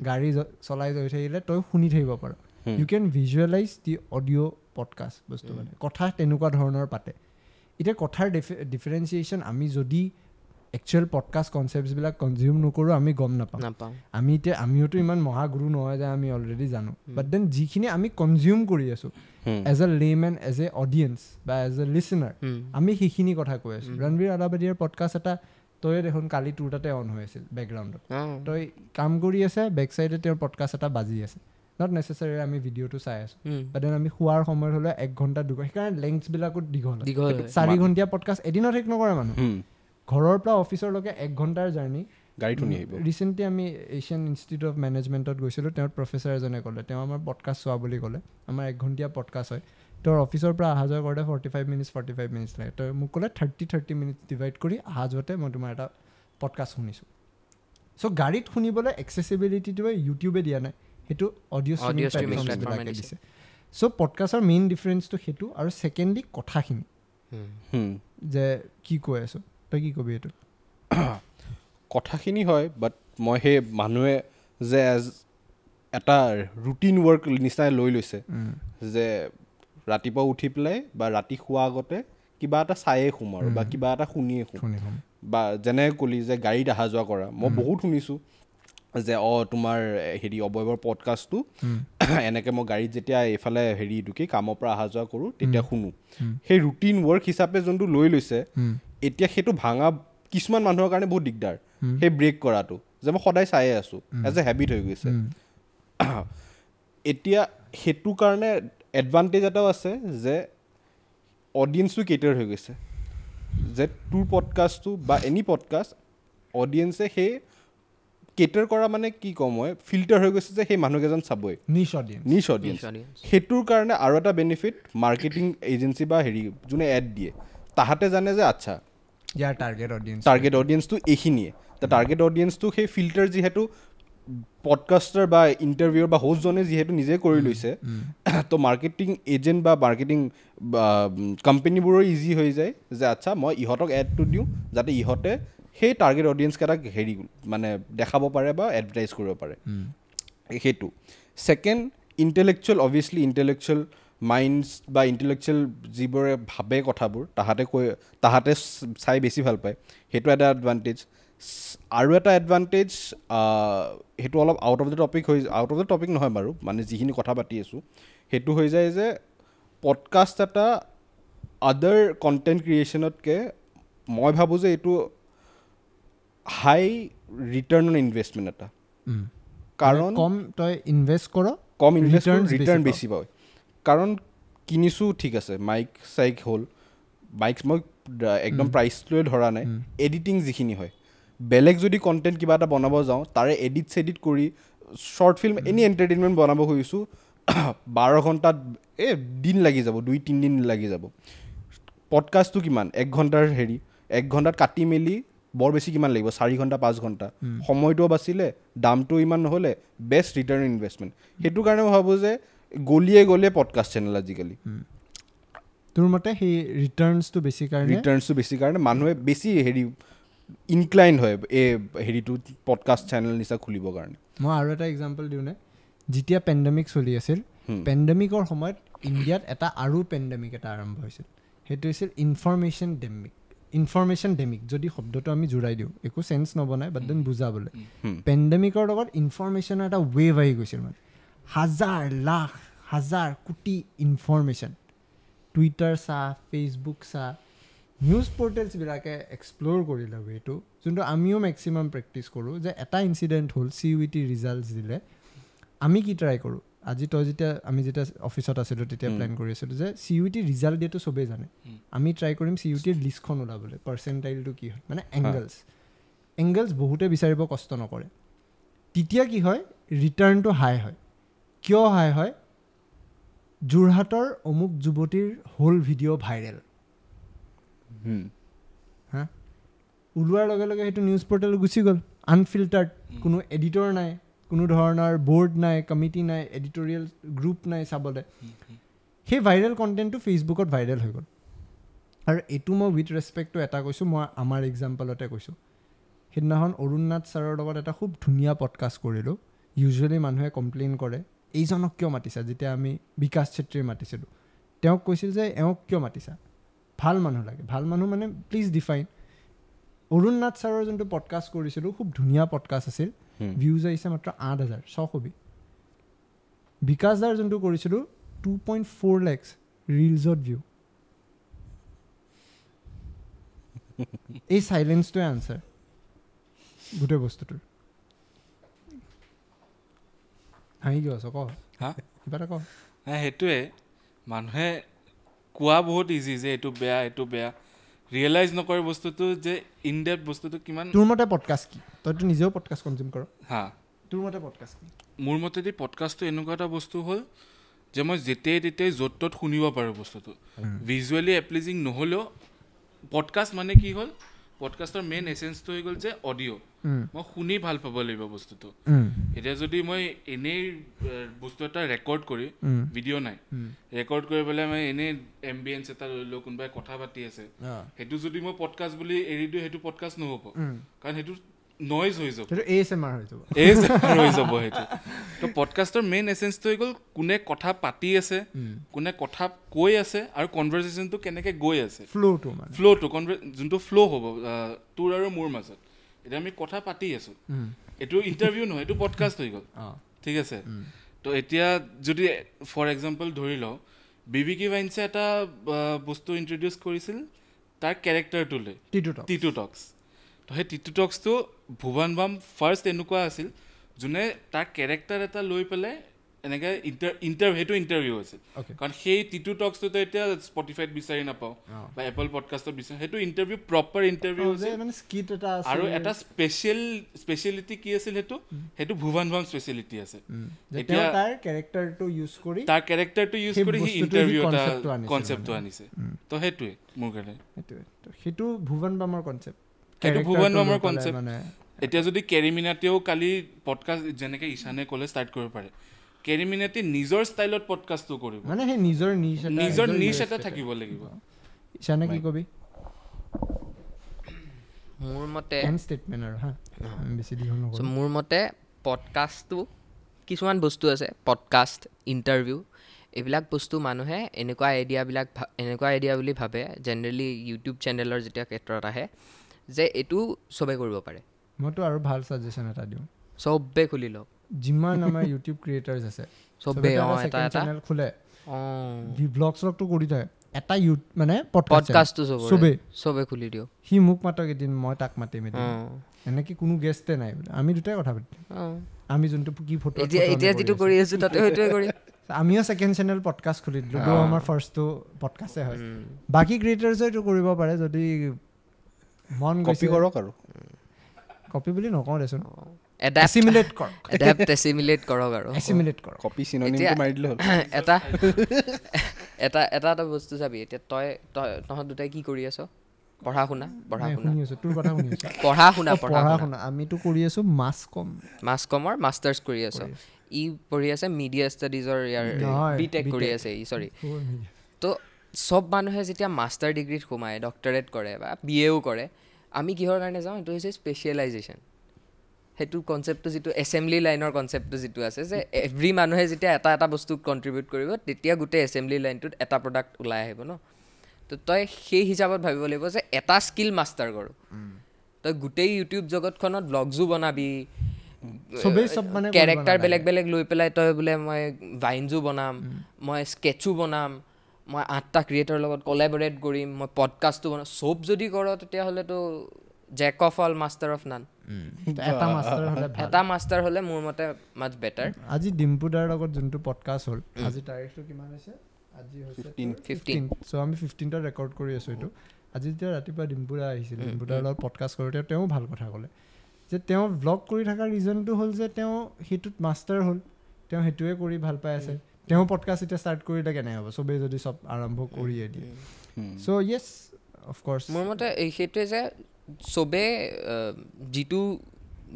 গাড়ী চলাই গৈ থাকিলে তই শুনি থাকিব পাৰ। You can visualise the audio podcast বস্তু, মানে কথা তেনেকুৱা ধৰণৰ পাতে। এতিয়া কথাৰ ডিফাৰেঞ্চিয়েশ্যন আমি যদি একচুৱেল পডকাষ্ট কনচেপ্টছবিলাক কনজিউম নকৰোঁ আমি গম নাপাওঁ। আমি এতিয়া আমিওতো ইমান মহাগুৰু নহয় যে আমি অলৰেডি জানো, বাট then যিখিনি আমি কনজিউম কৰি আছোঁ as a layman, as a audience বা এজ এ লিচনাৰ, আমি সেইখিনি কথা কৈ আছোঁ। ৰণবীৰ আলাবাদিয়াৰ পডকাষ্ট এটা তই দেখোন কালি তোৰ তাতে অন হৈ আছিল বেকগ্ৰাউণ্ডত, তই কাম কৰি আছে, বেক চাইডে তেওঁৰ পডকাষ্ট এটা বাজি আছে। Not নেচেচাৰী আমি ভিডিঅ'টো চাই আছোঁ, বাট then আমি শোৱাৰ সময়ত হ'লে 1 ঘণ্টা 2 ঘণ্টা, সেইকাৰণে লেংথছবিলাকো দীঘল। 4 ঘণ্টীয়া পডকাষ্ট এদিনত শেষ নকৰে মানুহ, ঘৰৰ পৰা অফিচৰলৈকে 1 ঘণ্টাৰ জাৰ্ণি, গাড়ীত শুনি আহিব। ৰিচেণ্টলি আমি এছিয়ান ইনষ্টিটিউট অফ মেনেজমেণ্টত গৈছিলোঁ, তেওঁৰ প্ৰফেচাৰ এজনে ক'লে, তেওঁ আমাৰ পডকাষ্ট চোৱা বুলি ক'লে, আমাৰ 1 ঘণ্টীয়া পডকাষ্ট হয়, তেওঁৰ অফিচৰ পৰা অহা যোৱা কৰোঁতে 45 মিনিটছ লাগে। তই মোক ক'লে 30 মিনিটছ ডিভাইড কৰি অহা যোৱাতে মই তোমাৰ এটা পডকাষ্ট শুনিছোঁ। চ' গাড়ীত শুনিবলৈ এক্সেচিবিলিটিটোৱে ইউটিউবে দিয়া নাই, সেইটো অডিঅ' ষ্ট্ৰীমিং প্লেটফৰ্মবিলাকে দিছে। চ' পডকাষ্টৰ মেইন ডিফাৰেঞ্চটো সেইটো, আৰু ছেকেণ্ডলি কথাখিনি যে কি কৈ আছোঁ। তই কি কবি এইটো? কথাখিনি হয়, বাট মই সেই মানুহে যে এজ এটা ৰুটিন ৱৰ্ক নিচিনাই লৈ লৈছে যে ৰাতিপুৱা উঠি পেলাই বা ৰাতি শোৱা আগতে কিবা এটা চায়ে শুম আৰু বা কিবা এটা শুনিয়ে শুম, বা যেনে ক'লি যে গাড়ীত অহা যোৱা কৰা, মই বহুত শুনিছোঁ যে তোমাৰ হেৰি অৱয়ৱৰ পডকাষ্টটো এনেকৈ মই গাড়ীত যেতিয়া এইফালে হেৰি কি কামৰ পৰা অহা যোৱা কৰোঁ তেতিয়া শুনো। সেই ৰুটিন ৱৰ্ক হিচাপে যোনটো লৈ লৈছে, এতিয়া সেইটো ভাঙা কিছুমান মানুহৰ কাৰণে বহুত দিগদাৰ, সেই ব্ৰেক কৰাটো যে মই সদায় চায়ে আছোঁ, এজ এ হেবিট হৈ গৈছে। এতিয়া সেইটো কাৰণে এডভান্টেজ এটাও আছে যে অডিয়েঞ্চটো কেটাৰ হৈ গৈছে, যে তোৰ পডকাষ্টটো বা এনি পডকাষ্ট অডিয়েঞ্চে সেই কেটাৰ কৰা মানে কি ক'ম মই, ফিল্টাৰ হৈ গৈছে যে সেই মানুহকেইজন চাবই, নিচ অডিয়েঞ্চ। সেইটোৰ কাৰণে আৰু এটা বেনিফিট, মাৰ্কেটিং এজেঞ্চি বা হেৰি যোনে এড দিয়ে তাহাঁতে জানে যে আচ্ছা ইয়াৰ টাৰ্গেট অডিয়েঞ্চটো এইখিনিয়ে। টাৰ্গেট অডিয়েঞ্চটো সেই ফিল্টাৰ যিহেতু পডকাষ্টাৰ বা ইণ্টাৰভিউৰ বা হোষ্টজনে যিহেতু নিজে কৰি লৈছে, তো মাৰ্কেটিং এজেণ্ট বা মাৰ্কেটিং কোম্পেনীবোৰৰ ইজি হৈ যায় যে আচ্ছা মই ইহঁতক এডটো দিওঁ যাতে ইহঁতে সেই টাৰ্গেট অডিয়েঞ্চকেইটাক হেৰি মানে দেখাব পাৰে বা এডভাৰটাইজ কৰিব পাৰে। সেইটো second, intellectual, obviously intellectual minds বা ইণ্টেলেকচুৱেল যিবোৰে ভাবে কথাবোৰ তাহাঁতে কৈ তাহাঁতে চাই বেছি ভাল পায়, সেইটো এটা এডভান্টেজ। আৰু এটা এডভান্টেজ, সেইটো অলপ আউট অফ the topic হৈ, আউট অফ the topic নহয় বাৰু, মানে যিখিনি কথা পাতি আছোঁ সেইটো হৈ যায় যে পডকাষ্ট এটা আদাৰ কণ্টেণ্ট ক্ৰিয়েশ্যনতকৈ মই ভাবোঁ যে এইটো হাই ৰিটাৰ্ণ অন ইনভেষ্টমেণ্ট এটা, কাৰণ কম তই ইনভেষ্ট কৰ, কম ইনভেষ্ট ৰিটাৰ্ণ বেছি পায়। কাৰণ কিনিছোঁ ঠিক আছে, মাইক চাইক হ'ল, মাইক মই একদম প্ৰাইচটোৱে ধৰা নাই, এডিটিং যিখিনি হয়, বেলেগ যদি কণ্টেণ্ট কিবা এটা বনাব যাওঁ তাৰে এডিট চেডিট কৰি শ্বৰ্ট ফিল্ম এনি এণ্টাৰটেইনমেণ্ট বনাব খুজিছোঁ, 12 ঘণ্টাত এই দিন লাগি যাব, 2-3 দিন লাগি যাব। পডকাষ্টটো কিমান 1 ঘণ্টাৰ হেৰি, 1 ঘণ্টাত কাটি মেলি বৰ বেছি কিমান লাগিব, 4 ঘণ্টা 5 ঘণ্টা, সময়টোও বাচিলে, দামটো ইমান নহ'লে, বেষ্ট ৰিটাৰ্ণ ইনভেষ্টমেণ্ট। সেইটো কাৰণে মই ভাবোঁ যে গলিয়ে গলিয়ে পডকাষ্ট চেনেল আজিকালি। তোৰ মতে সেই ৰিটাৰ্ণছটো বেছি কাৰণে, ৰিটাৰ্ণছটো বেছি কাৰণে মানুহে বেছি হেৰি ইনক্লাইন হয় এই হেৰিটো পডকাষ্ট চেনেল নিচিনা খুলিবৰ কাৰণে। মই আৰু এটা এক্সাম্পল দিওঁনে, যেতিয়া পেণ্ডেমিক চলি আছিল, পেণ্ডেমিকৰ সময়ত ইণ্ডিয়াত এটা আৰু পেণ্ডেমিক এটা আৰম্ভ হৈছিল, সেইটো হৈছিল ইনফৰমেশ্যন ডেমিক। ইনফৰমেশ্যন ডেমিক যদি শব্দটো আমি জোৰাই দিওঁ একো চেন্স নবনায়, বাট then বুজাবলৈ, পেণ্ডেমিকৰ লগত ইনফৰমেশ্যনৰ এটা ৱেভ আহি গৈছিল, মানে হাজাৰ লাখ হাজাৰ কোটি ইনফৰমেশ্যন, টুইটাৰ চা, ফেচবুক চা, নিউজ পৰ্টেলছবিলাকে এক্সপ্ল'ৰ কৰিলে এইটো, যোনটো আমিও মেক্সিমাম প্ৰেক্টিছ কৰোঁ যে এটা ইনচিডেণ্ট হ'ল, CUET results দিলে, আমি কি ট্ৰাই কৰোঁ। আজি তই যেতিয়া আমি যেতিয়া অফিচত আছিলোঁ তেতিয়া প্লেন কৰি আছিলোঁ যে CUET result দিয়াটো চবেই জানে, আমি ট্ৰাই কৰিম CUETৰ লিষ্টখন ওলাবলৈ, পাৰ্চেণ্টাইলটো কি হয়, মানে এংগলছ এংগলছ বহুতে বিচাৰিব কষ্ট নকৰে। তেতিয়া কি হয়, ৰিটাৰ্ণটো হাই হয়। কিয় হাই হয়? যোৰহাটৰ অমুক যুৱতীৰ হোল ভিডিঅ' ভাইৰেল হা, ওলোৱাৰ লগে লগে সেইটো নিউজ পৰ্টেল গুচি গ'ল, আনফিল্টাৰ্ড, কোনো এডিটৰ নাই, কোনো ধৰণৰ বৰ্ড নাই, কমিটি নাই, এডিটৰিয়েল গ্ৰুপ নাই চাবলৈ। সেই ভাইৰেল কণ্টেণ্টটো ফেচবুকত ভাইৰেল হৈ গ'ল। আৰু এইটো মই উইথ ৰেচপেক্টটো এটা কৈছোঁ, মই আমাৰ এক্সাম্পলতে কৈছোঁ। সেইদিনাখন অৰুণ নাথ ছাৰৰ লগত এটা খুব ধুনীয়া পডকাষ্ট কৰিলোঁ। ইউজুৱেলি মানুহে কমপ্লেইন কৰে এইজনক কিয় মাতিছা, যেতিয়া আমি বিকাশ চেত্ৰীৰ মাতিছিলোঁ তেওঁক কৈছিল যে এওঁক কিয় মাতিছা, ভাল মানুহ লাগে, ভাল মানুহ মানে প্লিজ ডিফাইন। অৰুণ নাথ ছাৰৰ যোনটো পডকাষ্ট কৰিছিলোঁ খুব ধুনীয়া পডকাষ্ট আছিল, ভিউজ আহিছে মাত্ৰ 8,600। বিকাশ দাৰ যোনটো কৰিছিলোঁ 2.4 lakhs ৰিলছত ভিউ। এই চাইলেঞ্চটোৱে আনচাৰ গোটেই বস্তুটোৰ। হাঁহি কিয় আছ, ক কিবা এটা ক। নাই, সেইটোৱে মানুহে কোৱা বহুত ইজি যে এইটো বেয়া এইটো বেয়া, ৰিয়েলাইজ নকৰে বস্তুটো যে ইন ডেপথ বস্তুটো কিমান। তোৰ মতে পডকাষ্ট কি? তইতো নিজেও পডকাষ্ট কনজিউম কৰ। হা, তোৰ মতে পডকাষ্ট কি? মোৰ মতেদি পডকাষ্টটো এনেকুৱা এটা বস্তু হ'ল যে মই যেতিয়াই তেতিয়াই য'ত ত'ত শুনিব পাৰোঁ বস্তুটো, ভিজুৱেলি এপ্লিজিং নহ'লেও। পডকাষ্ট মানে কি হ'ল, পডকাষ্টৰ মেইন এচেঞ্চটো হৈ গ'ল যে অডিঅ', মই শুনি ভাল পাব লাগিব বস্তুটো। এতিয়া যদি মই এনেই বস্তু এটা ৰেকৰ্ড কৰি, ভিডিঅ' নাই, ৰেকৰ্ড কৰি পেলাই মই এনেই এম্বিয়েঞ্চ এটা লৈ লওঁ, কোনোবাই কথা পাতি আছে, সেইটো যদি মই পডকাষ্ট বুলি এৰি দিওঁ সেইটো পডকাষ্ট নহ'ব, কাৰণ সেইটো নইজ হৈ যাব, ASMR হৈ যাব, ASMR হৈ যাব সেইটো। তো পডকাষ্টৰ মেইন এচেঞ্চটো হৈ গ'ল কোনে কথা পাতি আছে, কোনে কথা কৈ আছে, আৰু কনভাৰ্চেশ্যনটো কেনেকৈ গৈ আছে, ফ্ল'টো, মানে ফ্ল'টো যোনটো ফ্ল' হ'ব তোৰ আৰু মোৰ মাজত। এতিয়া আমি কথা পাতি আছোঁ, এইটো ইণ্টাৰভিউ নহয়, এইটো পডকাষ্ট হৈ গ'ল, ঠিক আছে। তো এতিয়া যদি ফৰ এক্সাম্পল ধৰি লওঁ, বিবিকি ভাইনছে এটা বস্তু ইণ্ট্ৰডিউচ কৰিছিল তাৰ কেৰেক্টাৰটোলৈ, টিটু টক্স। তো সেই টিটু টক্সটো ভুৱন বাম ফাৰ্ষ্ট এনেকুৱা আছিল যোনে তাৰ কেৰেক্টাৰ এটা লৈ পেলাই এনেকৈ সেইটো ইণ্টাৰভিউ আছিল। কাৰণ সেই টিটু টক্সটোতো এতিয়া স্পটিফাইত বিচাৰি নাপাওঁ বা এপল পডকাষ্টত বিচাৰি, সেইটো ইণ্টাৰভিউ প্ৰপাৰ ইণ্টাৰভিউ আছিল। আৰু এটা স্পেচিয়েলিটি কি আছিল, সেইটো সেইটো ভুৱন বাম স্পেচিয়েলিটি আছে। এতিয়া তাৰ কেৰেক্টাৰটো ইউজ কৰি, তাৰ কেৰেক্টাৰটো ইউজ কৰি সি ইণ্টাৰভিউ এটা কনচেপ্টটো আনিছে। তো সেইটোৱে মোৰ কাৰণে, সেইটোৱে সেইটো ভুৱন বামৰ কনচেপ্ট, সেইটো ভুৱন বামৰ কনচেপ্ট। এতিয়া যদি কেৰিমিনাতেও কালি পডকাষ্ট যেনেকৈ ঈশানে ক'লে ষ্টাৰ্ট কৰিব পাৰে, কেৰিমিনাতে নিজৰ ষ্টাইলত পডকাষ্টটো কৰিব, মানে সেই নিজৰ নিচ এটা, নিজৰ নিচ এটা থাকিব লাগিব। ঈশানে কি কবি? মোৰ মতে ষ্টেটমেণ্ট আৰু হা, বেছি দীঘল নকৰোঁ। মোৰ মতে পডকাষ্টটো কিছুমান বস্তু আছে, পডকাষ্ট, ইণ্টাৰভিউ, এইবিলাক বস্তু মানুহে এনেকুৱা আইডিয়াবিলাক এনেকুৱা আইডিয়া বুলি ভাবে জেনেৰেলি ইউটিউব চেনেলৰ যেতিয়া ক্ষেত্ৰত আহে যে এইটো চবেই কৰিব পাৰে। মইতো আৰু ভাল ছাজেশ্যন এটা দিওঁ, চবে খুলি লওক। যিমান আমাৰ ইউটিউব ক্ৰিয়েটাৰ্ছ আছে চবে এটা এটা চেনেল খোলে, ব্লগ শ্লগটো কৰি থাকে, এটা মানে পডকাষ্টটো চবে চবে খুলি দিয়ক। সি মোক মাতক এদিন, মই তাক মাতিম এদিন, এনেকৈ কোনো গেষ্টে নাই বোলে, আমি দুটাই কথা পাতিম। আমি যোনটো কি ফটো এতিয়া যিটো কৰি আছোঁ তাতে সেইটোৱে কৰিম। আমিও ছেকেণ্ড চেনেল পডকাষ্ট খুলি দিলোঁ, আমাৰ ফাৰ্ষ্টটো পডকাষ্টে হয়। বাকী ক্ৰিয়েটাৰ্ছে এইটো কৰিব পাৰে যদি মন কপি কৰক, আৰু কপি বুলি নকওঁ দেচোন, এছিমিলেট কৰক, এডাপ্ট এছিমিলেট কৰক, আৰু এছিমিলেট কৰক, কপি চিনোনিমটো মাৰি দিলে হ'ল। এটা এটা এটা এটা বস্তু চাবি, এতিয়া তই তই তহঁত দুটাই কি কৰি আছ? পঢ়া শুনা, পঢ়া শুনা, তোৰ কথা শুনি আছো, পঢ়া শুনা, পঢ়া শুনা। আমিতো কৰি আছো মাছ কম, মাছ কমৰ মাষ্টাৰ্ছ কৰি আছ, ই পঢ়ি আছে মিডিয়া ষ্টাডিজৰ, ইয়াৰ বি টেক কৰি আছে ই, চৰি। তো চব মানুহে যেতিয়া মাষ্টাৰ ডিগ্ৰীত সোমায়, ডক্টৰেট কৰে বা বি এও কৰে, আমি কিহৰ কাৰণে যাওঁ? সেইটো হৈছে স্পেচিয়েলাইজেশ্যন। সেইটো কনচেপ্টটো যিটো এছেম্বলি লাইনৰ কনচেপ্টটো যিটো আছে যে এভৰি মানুহে যেতিয়া এটা এটা বস্তু কণ্ট্ৰিবিউট কৰিব তেতিয়া গোটেই এছেম্বলি লাইনটোত এটা প্ৰডাক্ট ওলাই আহিব ন। তো তই সেই হিচাপত ভাবিব লাগিব যে এটা স্কিল মাষ্টাৰ কৰোঁ। তই গোটেই ইউটিউব জগতখনত ব্লগছো বনাবি, চবেই চব মানে কেৰেক্টাৰ বেলেগ বেলেগ লৈ পেলাই তই বোলে মই ভাইনজো বনাম, মই স্কেচো বনাম, মই 8টা ক্ৰিয়েটৰ লগত কলেবৰেট কৰিম, মই পডকাষ্টো বনাম, চব যদি কৰ তেতিয়াহ'লেতো jack of all master of none. এটা মাষ্টাৰ হ'লে মোৰ মতে মাচ বেটাৰ। আজি ডিম্পু দাৰ লগত যোনটো পডকাষ্ট হ'ল, আজি তাৰিখটো কিমান হৈছে? আজি হৈছে 15। চ' আমি 15ত ৰেকৰ্ড কৰি আছোঁ এইটো। আজি যেতিয়া ৰাতিপুৱা ডিম্পু দা আহিছিল, ডিম্পু দাৰ লগত পডকাষ্ট কৰোঁতে তেওঁ ভাল কথা ক'লে যে তেওঁ ভ্লগ কৰি থকাৰ ৰিজনটো হ'ল যে তেওঁ সেইটোত মাষ্টাৰ হ'ল, তেওঁ সেইটোৱে কৰি ভাল পাই আছে। তেওঁ পডকাষ্ট এতিয়া ষ্টাৰ্ট কৰিলে কেনে হ'ব, চবেই যদি চব আৰম্ভ কৰিয়ে দিয়ে। চ' য়েছ, অফক'ৰ্ছ মোৰ মতে সেইটোৱে যে চবে যিটো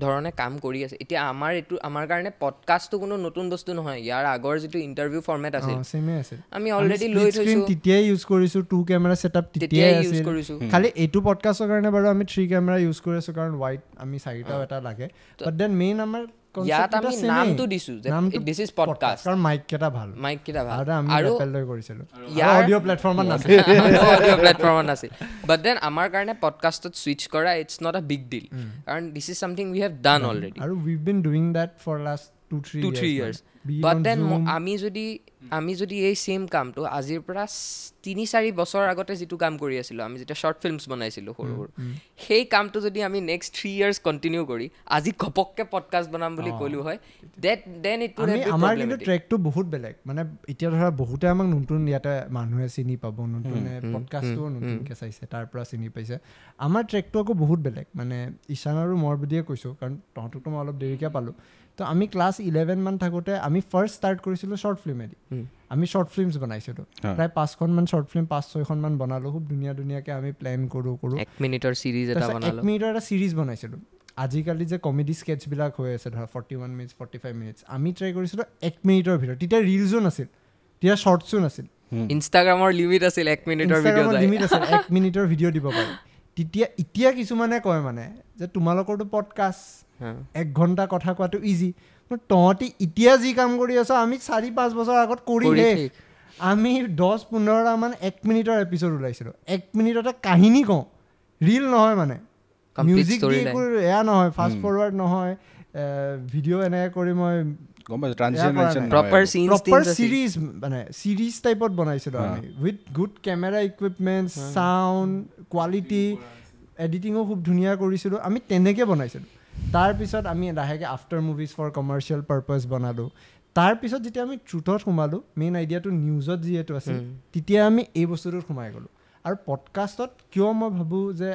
ধৰণে কাম কৰি আছে এতিয়া, আমাৰ এইটো আমাৰ কাৰণে পডকাষ্টটো কোনো নতুন বস্তু নহয়। ইয়াৰ আগৰ যিটো ইণ্টাৰভিউ ফৰ্মেট আছিল আমি অলৰেডি লৈ থৈছোঁ, তেতিয়াই ইউজ কৰিছোঁ, 2 কেমেৰা ছেটআপ তেতিয়াই ইউজ কৰিছোঁ। খালি এইটো পডকাষ্টৰ কাৰণে বাৰু আমি 3 কেমেৰা ইউজ কৰি আছোঁ, কাৰণ ৱাইড আমি 4টাও এটা লাগে। বাট then main আমাৰ ইয়াত আমি নামটো দিছোঁ যে this is podcast, কাৰণ মাইক কেইটা ভাল, মাইক কেইটা ভাল আৰু আমি লৈ কৰিছিলোঁ, অডিঅ' প্লেটফৰ্মত নাছিল, অডিঅ' প্লেটফৰ্মত নাছিল। বাট then আমাৰ কাৰণে পডকাষ্টত ছুইচ কৰা it's not a big deal, কাৰণ this is something we have done already আৰু we have been doing that for last 2-3 years. But then আমি যদি এই ছেম কামটো আজিৰ পৰা 3-4 বছৰ আগতে যিটো কাম কৰি আছিলোঁ, আমি যেতিয়া শ্বৰ্ট ফিল্মছ বনাইছিলোঁ সৰু সৰু, সেই কামটো যদি আমি নেক্সট 3 ইয়াৰ্ছ কণ্টিনিউ কৰি আজি ঘপককৈ পডকাষ্ট বনাম বুলি ক'লোঁ হয়, then it would have been. আমাৰ কিন্তু ট্ৰেকটো বহুত বেলেগ। মানে এতিয়া ধৰা বহুতে আমাক নতুন ইয়াতে মানুহে চিনি পাব, নতুন পডকাষ্টটোও নতুনকৈ চাইছে, তাৰ পৰা চিনি পাইছে। আমাৰ ট্ৰেকটো আকৌ বহুত বেলেগ। মানে ঈশান আৰু মই বুলিয়ে কৈছোঁ, কাৰণ তহঁতকতো মই অলপ দেৰিকৈ পালোঁ। তো আমি ক্লাছ 11 মান থাকোঁতে আমি ফাৰ্ষ্ট ষ্টাৰ্ট কৰিছিলোঁ শ্বৰ্ট ফিল্মেদি। আমি শ্বৰ্ট ফিল্মছ বনাইছিলোঁ, প্ৰায় 5খনমান শ্বৰ্ট ফিল্ম, 5-6খনমান বনালোঁ। খুব ধুনীয়া ধুনীয়াকৈ আমি প্লেন কৰোঁ 1 মিনিটৰ ছিৰিজ এটা বনালোঁ, 1 মিনিটৰ এটা ছিৰিজ বনাইছিলোঁ। আজিকালি যে কমেডি স্কেটছবিলাক হৈ আছে ধৰা 41 মিনিটছ, 45 মিনিটছ, আমি ট্ৰাই কৰিছিলোঁ 1 মিনিটৰ ভিতৰত। তেতিয়া ৰিলছো নাছিল, তেতিয়া শ্বৰ্টছো নাছিল, ইনষ্টাগ্ৰামৰ লিমিট আছিল 1 মিনিটৰ ভিডিঅ' লিমিট আছিল, 1 মিনিটৰ ভিডিঅ' দিব পাৰি তেতিয়া। এতিয়া কিছুমানে কয় মানে যে তোমালোকৰতো পডকাষ্ট 1 ঘণ্টা কথা কোৱাটো ইজি, তহঁতি এতিয়া যি কাম কৰি আছ আমি 4-5 বছৰ আগত কৰি শেষ। আমি 10-15টামান 1 মিনিটৰ এপিছ'ড ওলাইছিলোঁ, 1 মিনিটতে কাহিনী কওঁ, ৰিল নহয়, মানে মিউজিক দি একো এয়া নহয়, ফাষ্ট ফৰৱাৰ্ড নহয়, ভিডিঅ' এনেকৈ কৰি মই প্ৰপাৰ চিৰিজ, মানে চিৰিজ টাইপত বনাইছিলোঁ আমি, with good camera equipment, sound quality, এডিটিঙো খুব ধুনীয়া কৰিছিলোঁ আমি, তেনেকৈ বনাইছিলোঁ। তাৰপিছত আমি লাহেকৈ after movies for commercial purpose বনালোঁ। তাৰপিছত যেতিয়া আমি ট্ৰুথত সোমালোঁ, মেইন আইডিয়াটো নিউজত যিহেতু আছিল, তেতিয়া আমি এই বস্তুটোত সোমাই গ'লোঁ। আৰু পডকাষ্টত কিয় মই ভাবোঁ যে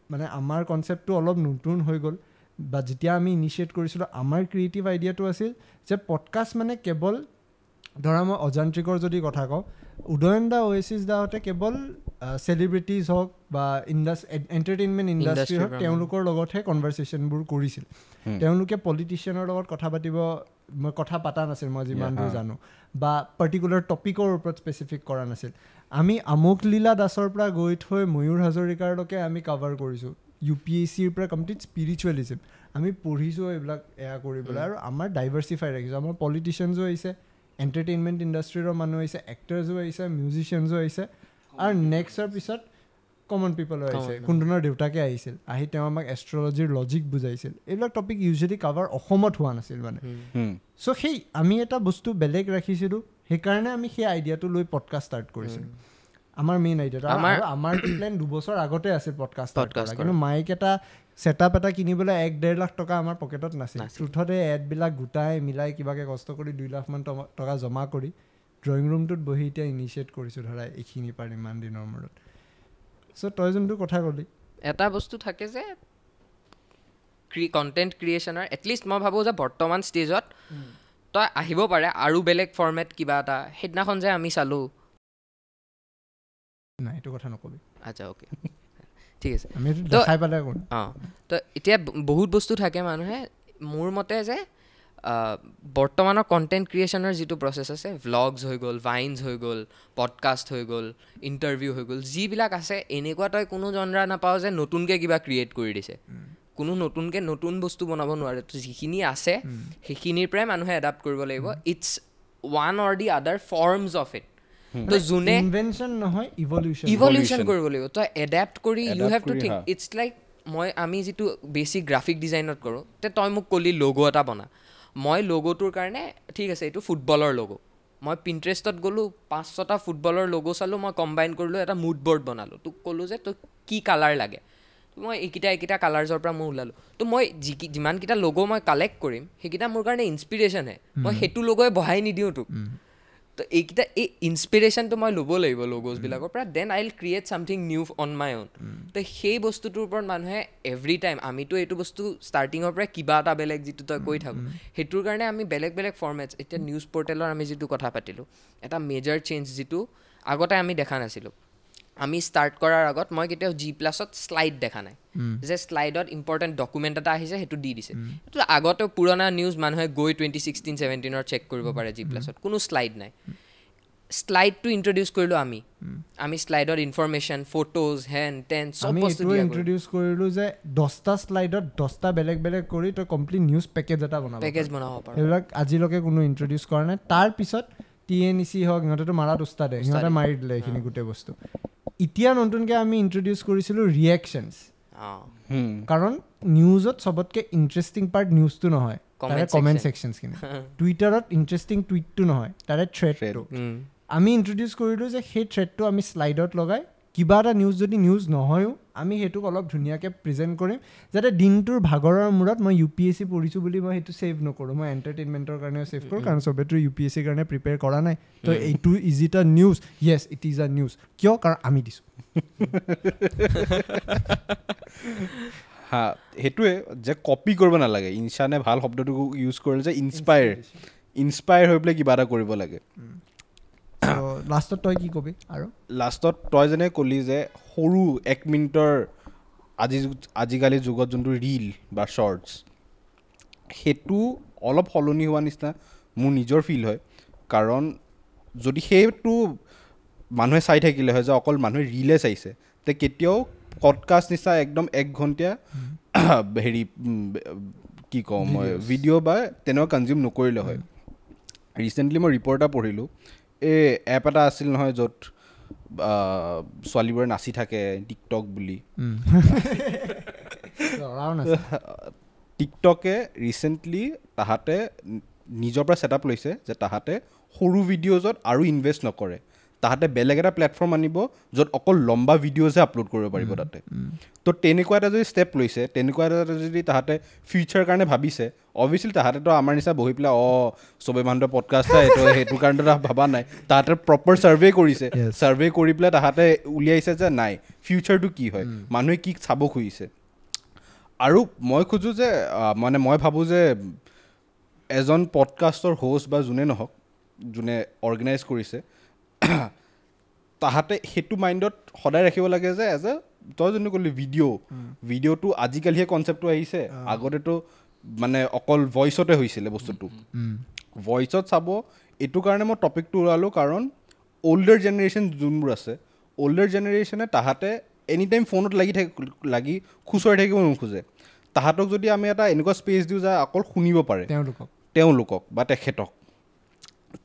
মানে আমাৰ কনচেপ্টটো অলপ নতুন হৈ গ'ল, বা যেতিয়া আমি ইনিচিয়েট কৰিছিলোঁ আমাৰ ক্ৰিয়েটিভ আইডিয়াটো আছিল যে পডকাষ্ট মানে কেৱল ধৰা মই অযান্ত্ৰিকৰ যদি কথা কওঁ, উদয়ন দা, অ'এছিছ দাহঁতে কেৱল চেলিব্ৰিটিজ হওক বা এণ্টাৰটেইনমেণ্ট ইণ্ডাষ্ট্ৰি হওক, তেওঁলোকৰ লগতহে কনভাৰ্চেশ্যনবোৰ কৰিছিল। তেওঁলোকে পলিটিচিয়ানৰ লগত কথা পাতিব, মই কথা পতা নাছিল মই যিমান দূৰ জানো, বা পাৰ্টিকুলাৰ টপিকৰ ওপৰত স্পেচিফিক কৰা নাছিল। আমি আমোক লীলা দাসৰ পৰা গৈ থৈ ময়ূৰ হাজৰিকাৰলৈকে আমি কাভাৰ কৰিছোঁ, ইউ পি এছ চিৰ পৰা কমপ্লিট স্পিৰিচুৱেলিজিম আমি পঢ়িছোঁ এইবিলাক এয়া কৰিবলৈ। আৰু আমাৰ ডাইভাৰ্চিফাই ৰাখিছোঁ, আমাৰ পলিটিচিয়ানছো আহিছে, এণ্টাৰটেইনমেণ্ট ইণ্ডাষ্ট্ৰীৰ মানুহ আহিছে, এক্টাৰ্ছো আহিছে, মিউজিচিয়ানছো আহিছে, আৰু নেক্সটৰ পিছত কমন পিপলো আহিছে। কুন্দনৰ দেউতাকে আহিছিল, আহি তেওঁ আমাক এষ্ট্ৰলজিৰ লজিক বুজাইছিল। এইবিলাক টপিক ইউজুৱেলি কাভাৰ অসমত হোৱা নাছিল মানে। চ' সেই আমি এটা বস্তু বেলেগ ৰাখিছিলোঁ, সেইকাৰণে আমি সেই আইডিয়াটো লৈ পডকাষ্ট ষ্টাৰ্ট কৰিছিলোঁ। আমাৰ মেইন আইডিয়াটো, আমাৰ প্লেন 2 বছৰ আগতে আছিল পডকাষ্ট ষ্টাৰ্ট কৰা, কিন্তু মাইক এটা ছেটআপ এটা কিনিবলৈ 1-1.5 লাখ টকা আমাৰ পকেটত নাছিল। ট্ৰুথতে এডবিলাক গোটাই মিলাই কিবাকে কষ্ট কৰি 2 লাখমান টকা জমা কৰি ড্ৰয়িং ৰুমটোত বহি এতিয়া ইনিচিয়েট কৰিছোঁ ধৰা এইখিনি পাৰ ইমান দিনৰ মূৰত। চ' তই যোনটো কথা ক'লি, এটা বস্তু থাকে যে কণ্টেণ্ট ক্ৰিয়েশ্যনৰ, এটলিষ্ট মই ভাবোঁ যে বৰ্তমান ষ্টেজত তই আহিব পাৰে আৰু বেলেগ ফৰ্মেট কিবা এটা। সেইদিনাখন যে আমি চালোঁ, নাই এইটো কথা নকবি। আচ্ছা অ'কে ঠিক আছে, অঁ। তো এতিয়া বহুত বস্তু থাকে, মানুহে মোৰ মতে যে বৰ্তমানৰ কণ্টেণ্ট ক্ৰিয়েশ্যনৰ যিটো প্ৰচেছ আছে, ভ্লগছ হৈ গ'ল, ভাইনছ হৈ গ'ল, পডকাষ্ট হৈ গ'ল, ইণ্টাৰভিউ হৈ গ'ল, যিবিলাক আছে এনেকুৱা তই কোনো জনৰা নাপাওঁ যে নতুনকৈ কিবা ক্ৰিয়েট কৰি দিছে। কোনো নতুনকৈ নতুন বস্তু বনাব নোৱাৰে, তো যিখিনি আছে সেইখিনিৰ পৰাই মানুহে এডাপ্ট কৰিব লাগিব। It's one or the other forms of it. তো যোনে ইনভেনশ্যন নহয়, ইভলিউশ্যন কৰিব লাগিব। তই এডাপ্ট কৰি you have to think. It's like মই আমি যিটো বেছিক গ্ৰাফিক ডিজাইনত কৰোঁ, তে তই মোক ক'লি লগো এটা বনা, মই লগ'টোৰ কাৰণে ঠিক আছে এইটো ফুটবলৰ লগো, মই পিণ্টাৰেষ্টত গ'লোঁ 5-6টা ফুটবলৰ লগো চালোঁ, মই কম্বাইন কৰিলোঁ, এটা মুড বৰ্ড বনালোঁ, তোক ক'লোঁ যে তোক কি কালাৰ লাগে, মই এইকেইটা কালাৰ্ছৰ পৰা মই ওলালোঁ। তো মই যিমানকেইটা লগো মই কালেক্ট কৰিম সেইকেইটা মোৰ কাৰণে ইনস্পিৰেশ্যনহে, মই সেইটো লগোৱে বহাই নিদিওঁ তোক। তো এইকেইটা এই ইনস্পিৰেশ্যনটো মই ল'ব লাগিব লগ'জবিলাকৰ পৰা, then I will create something new on my own. তো সেই বস্তুটোৰ ওপৰত মানুহে এভৰি টাইম, আমিতো এইটো বস্তু ষ্টাৰ্টিঙৰ পৰা কিবা এটা বেলেগ যিটো তই কৈ থাকোঁ, সেইটোৰ কাৰণে আমি বেলেগ বেলেগ ফৰ্মেটছ। এতিয়া নিউজ পৰ্টেলৰ আমি যিটো কথা পাতিলোঁ, এটা মেজৰ চেঞ্জ যিটো আগতে আমি দেখা নাছিলোঁ। আমি ষ্টাৰ্ট কৰাৰ আগত মই কেতিয়াও জি প্লাছত শ্লাইড দেখা নাই, যে শ্লাইডত ইম্পৰ্টেণ্ট ডকুমেণ্ট এটা আহিছে সেইটো দি দিছে। এইটো আগতেও পুৰণা নিউজ মানুহে গৈ 2016-17 চেক কৰিব পাৰে, জি প্লাছত কোনো শ্লাইড নাই। শ্লাইডটো ইণ্ট্ৰডিউচ কৰিলোঁ আমি, আমি শ্লাইডত ইনফৰমেশ্যন, ফটোজ, হেন টেন চব বস্তু ইণ্ট্ৰডিউচ কৰিলোঁ, যে 10টা শ্লাইডত 10টা বেলেগ বেলেগ কৰি তই কমপ্লিট নিউজ পেকেজ এটা বনাব পাৰ। সেইবিলাক আজিলৈকে কোনো ইণ্ট্ৰডিউচ কৰা নাই। তাৰপিছত TNEC হওক, সিহঁতেতো মাৰাত উস্তাদে, সিহঁতে মাৰি দিলে এইখিনি গোটেই বস্তু। এতিয়া নতুনকৈ আমি ইণ্ট্ৰডিউচ কৰিছিলোঁ ৰিয়েকশ্যনছ, কাৰণ নিউজত চবতকৈ ইণ্টাৰেষ্টিং পাৰ্ট নিউজটো নহয়, তাৰে কমেণ্ট ছেকশ্যনছখিনি। টুইটাৰত ইণ্টাৰেষ্টিং টুইটটো নহয়, তাৰে থ্ৰেডটো। আমি ইণ্ট্ৰডিউচ কৰিলোঁ যে সেই থ্ৰেডটো আমি শ্লাইডত লগাই কিবা এটা নিউজ যদি নিউজ নহয়ো আমি সেইটোক অলপ ধুনীয়াকৈ প্ৰেজেণ্ট কৰিম, যাতে দিনটোৰ ভাগৰৰ মূৰত মই UPSC পঢ়িছোঁ বুলি মই সেইটো ছেভ নকৰোঁ, মই এণ্টাৰটেইনমেণ্টৰ কাৰণেও ছেভ কৰোঁ, কাৰণ চবেতো UPSC কাৰণে প্ৰিপেয়াৰ কৰা নাই। তো এইটো is it a news? Yes, it is a news. কিয়? কাৰণ আমি দিছোঁ। হা, সেইটোৱে যে কপি কৰিব নালাগে। ইনচানে ভাল শব্দটো ইউজ কৰিলে যে ইনস্পায়াৰ হৈ পেলাই কিবা এটা কৰিব লাগে। লাষ্টত তই কি কবি? আৰু লাষ্টত তই যেনে ক'লি যে সৰু 1 মিনিটৰ আজিকালি যুগত যোনটো ৰীল বা শ্বৰ্টছ, সেইটো অলপ সলনি হোৱা নিচিনা মোৰ নিজৰ ফিল হয়। কাৰণ যদি সেইটো মানুহে চাই থাকিলে হয় যে অকল মানুহে ৰীলে চাইছে, তে কেতিয়াও পডকাষ্ট নিচিনা একদম 1 ঘণ্টীয়া হেৰি কি কওঁ মই ভিডিঅ' বা তেনেকুৱা কনজিউম নকৰিলে হয়। ৰিচেণ্টলি মই ৰিপৰ্ট এটা পঢ়িলোঁ, এই এপ এটা আছিল নহয় য'ত ছোৱালীবোৰে নাচি থাকে, টিকটক বুলি। টিকটকে ৰিচেণ্টলি তাহাঁতে নিজৰ পৰা ছেটআপ লৈছে যে তাহাঁতে সৰু ভিডিঅ'জত আৰু ইনভেষ্ট নকৰে, তাহাঁতে বেলেগ এটা প্লেটফৰ্ম আনিব য'ত অকল লম্বা ভিডিঅ'জহে আপলোড কৰিব পাৰিব তাতে। তো তেনেকুৱা এটা যদি ষ্টেপ লৈছে, তেনেকুৱা এটা যদি তাহাঁতে ফিউচাৰ কাৰণে ভাবিছে, অভিয়াছলি তাহাঁতেতো আমাৰ নিচিনা বহি পেলাই চবেই মানুহটো পডকাষ্ট চাই তো সেইটো কাৰণেতো ভবা নাই, তাহাঁতে প্ৰপাৰ ছাৰ্ভে কৰিছে, ছাৰ্ভে কৰি পেলাই তাহাঁতে উলিয়াইছে যে নাই ফিউচাৰটো কি হয়, মানুহে কি চাব খুজিছে। আৰু মই খোজোঁ যে মানে মই ভাবোঁ যে এজন পডকাষ্টৰ হোষ্ট বা যোনে নহওক, যোনে অৰ্গেনাইজ কৰিছে, তাহাঁতে সেইটো মাইণ্ডত সদায় ৰাখিব লাগে যে এজ এ তই যোনটো ক'লি ভিডিঅ'টো আজিকালিহে কনচেপ্টটো আহিছে, আগতেতো মানে অকল ভইচতে হৈছিলে বস্তুটো। ভইচত চাব, এইটো কাৰণে মই টপিকটো ওলালোঁ, কাৰণ অল্ডাৰ জেনেৰেশ্যন যোনবোৰ আছে, অল্ডাৰ জেনেৰেশ্যনে তাহাঁতে এনি টাইম ফোনত লাগি খুচৰি থাকিব নোখোজে। তাহাঁতক যদি আমি এটা এনেকুৱা স্পেচ দিওঁ যে অকল শুনিব পাৰে তেওঁলোকক বা তেখেতক,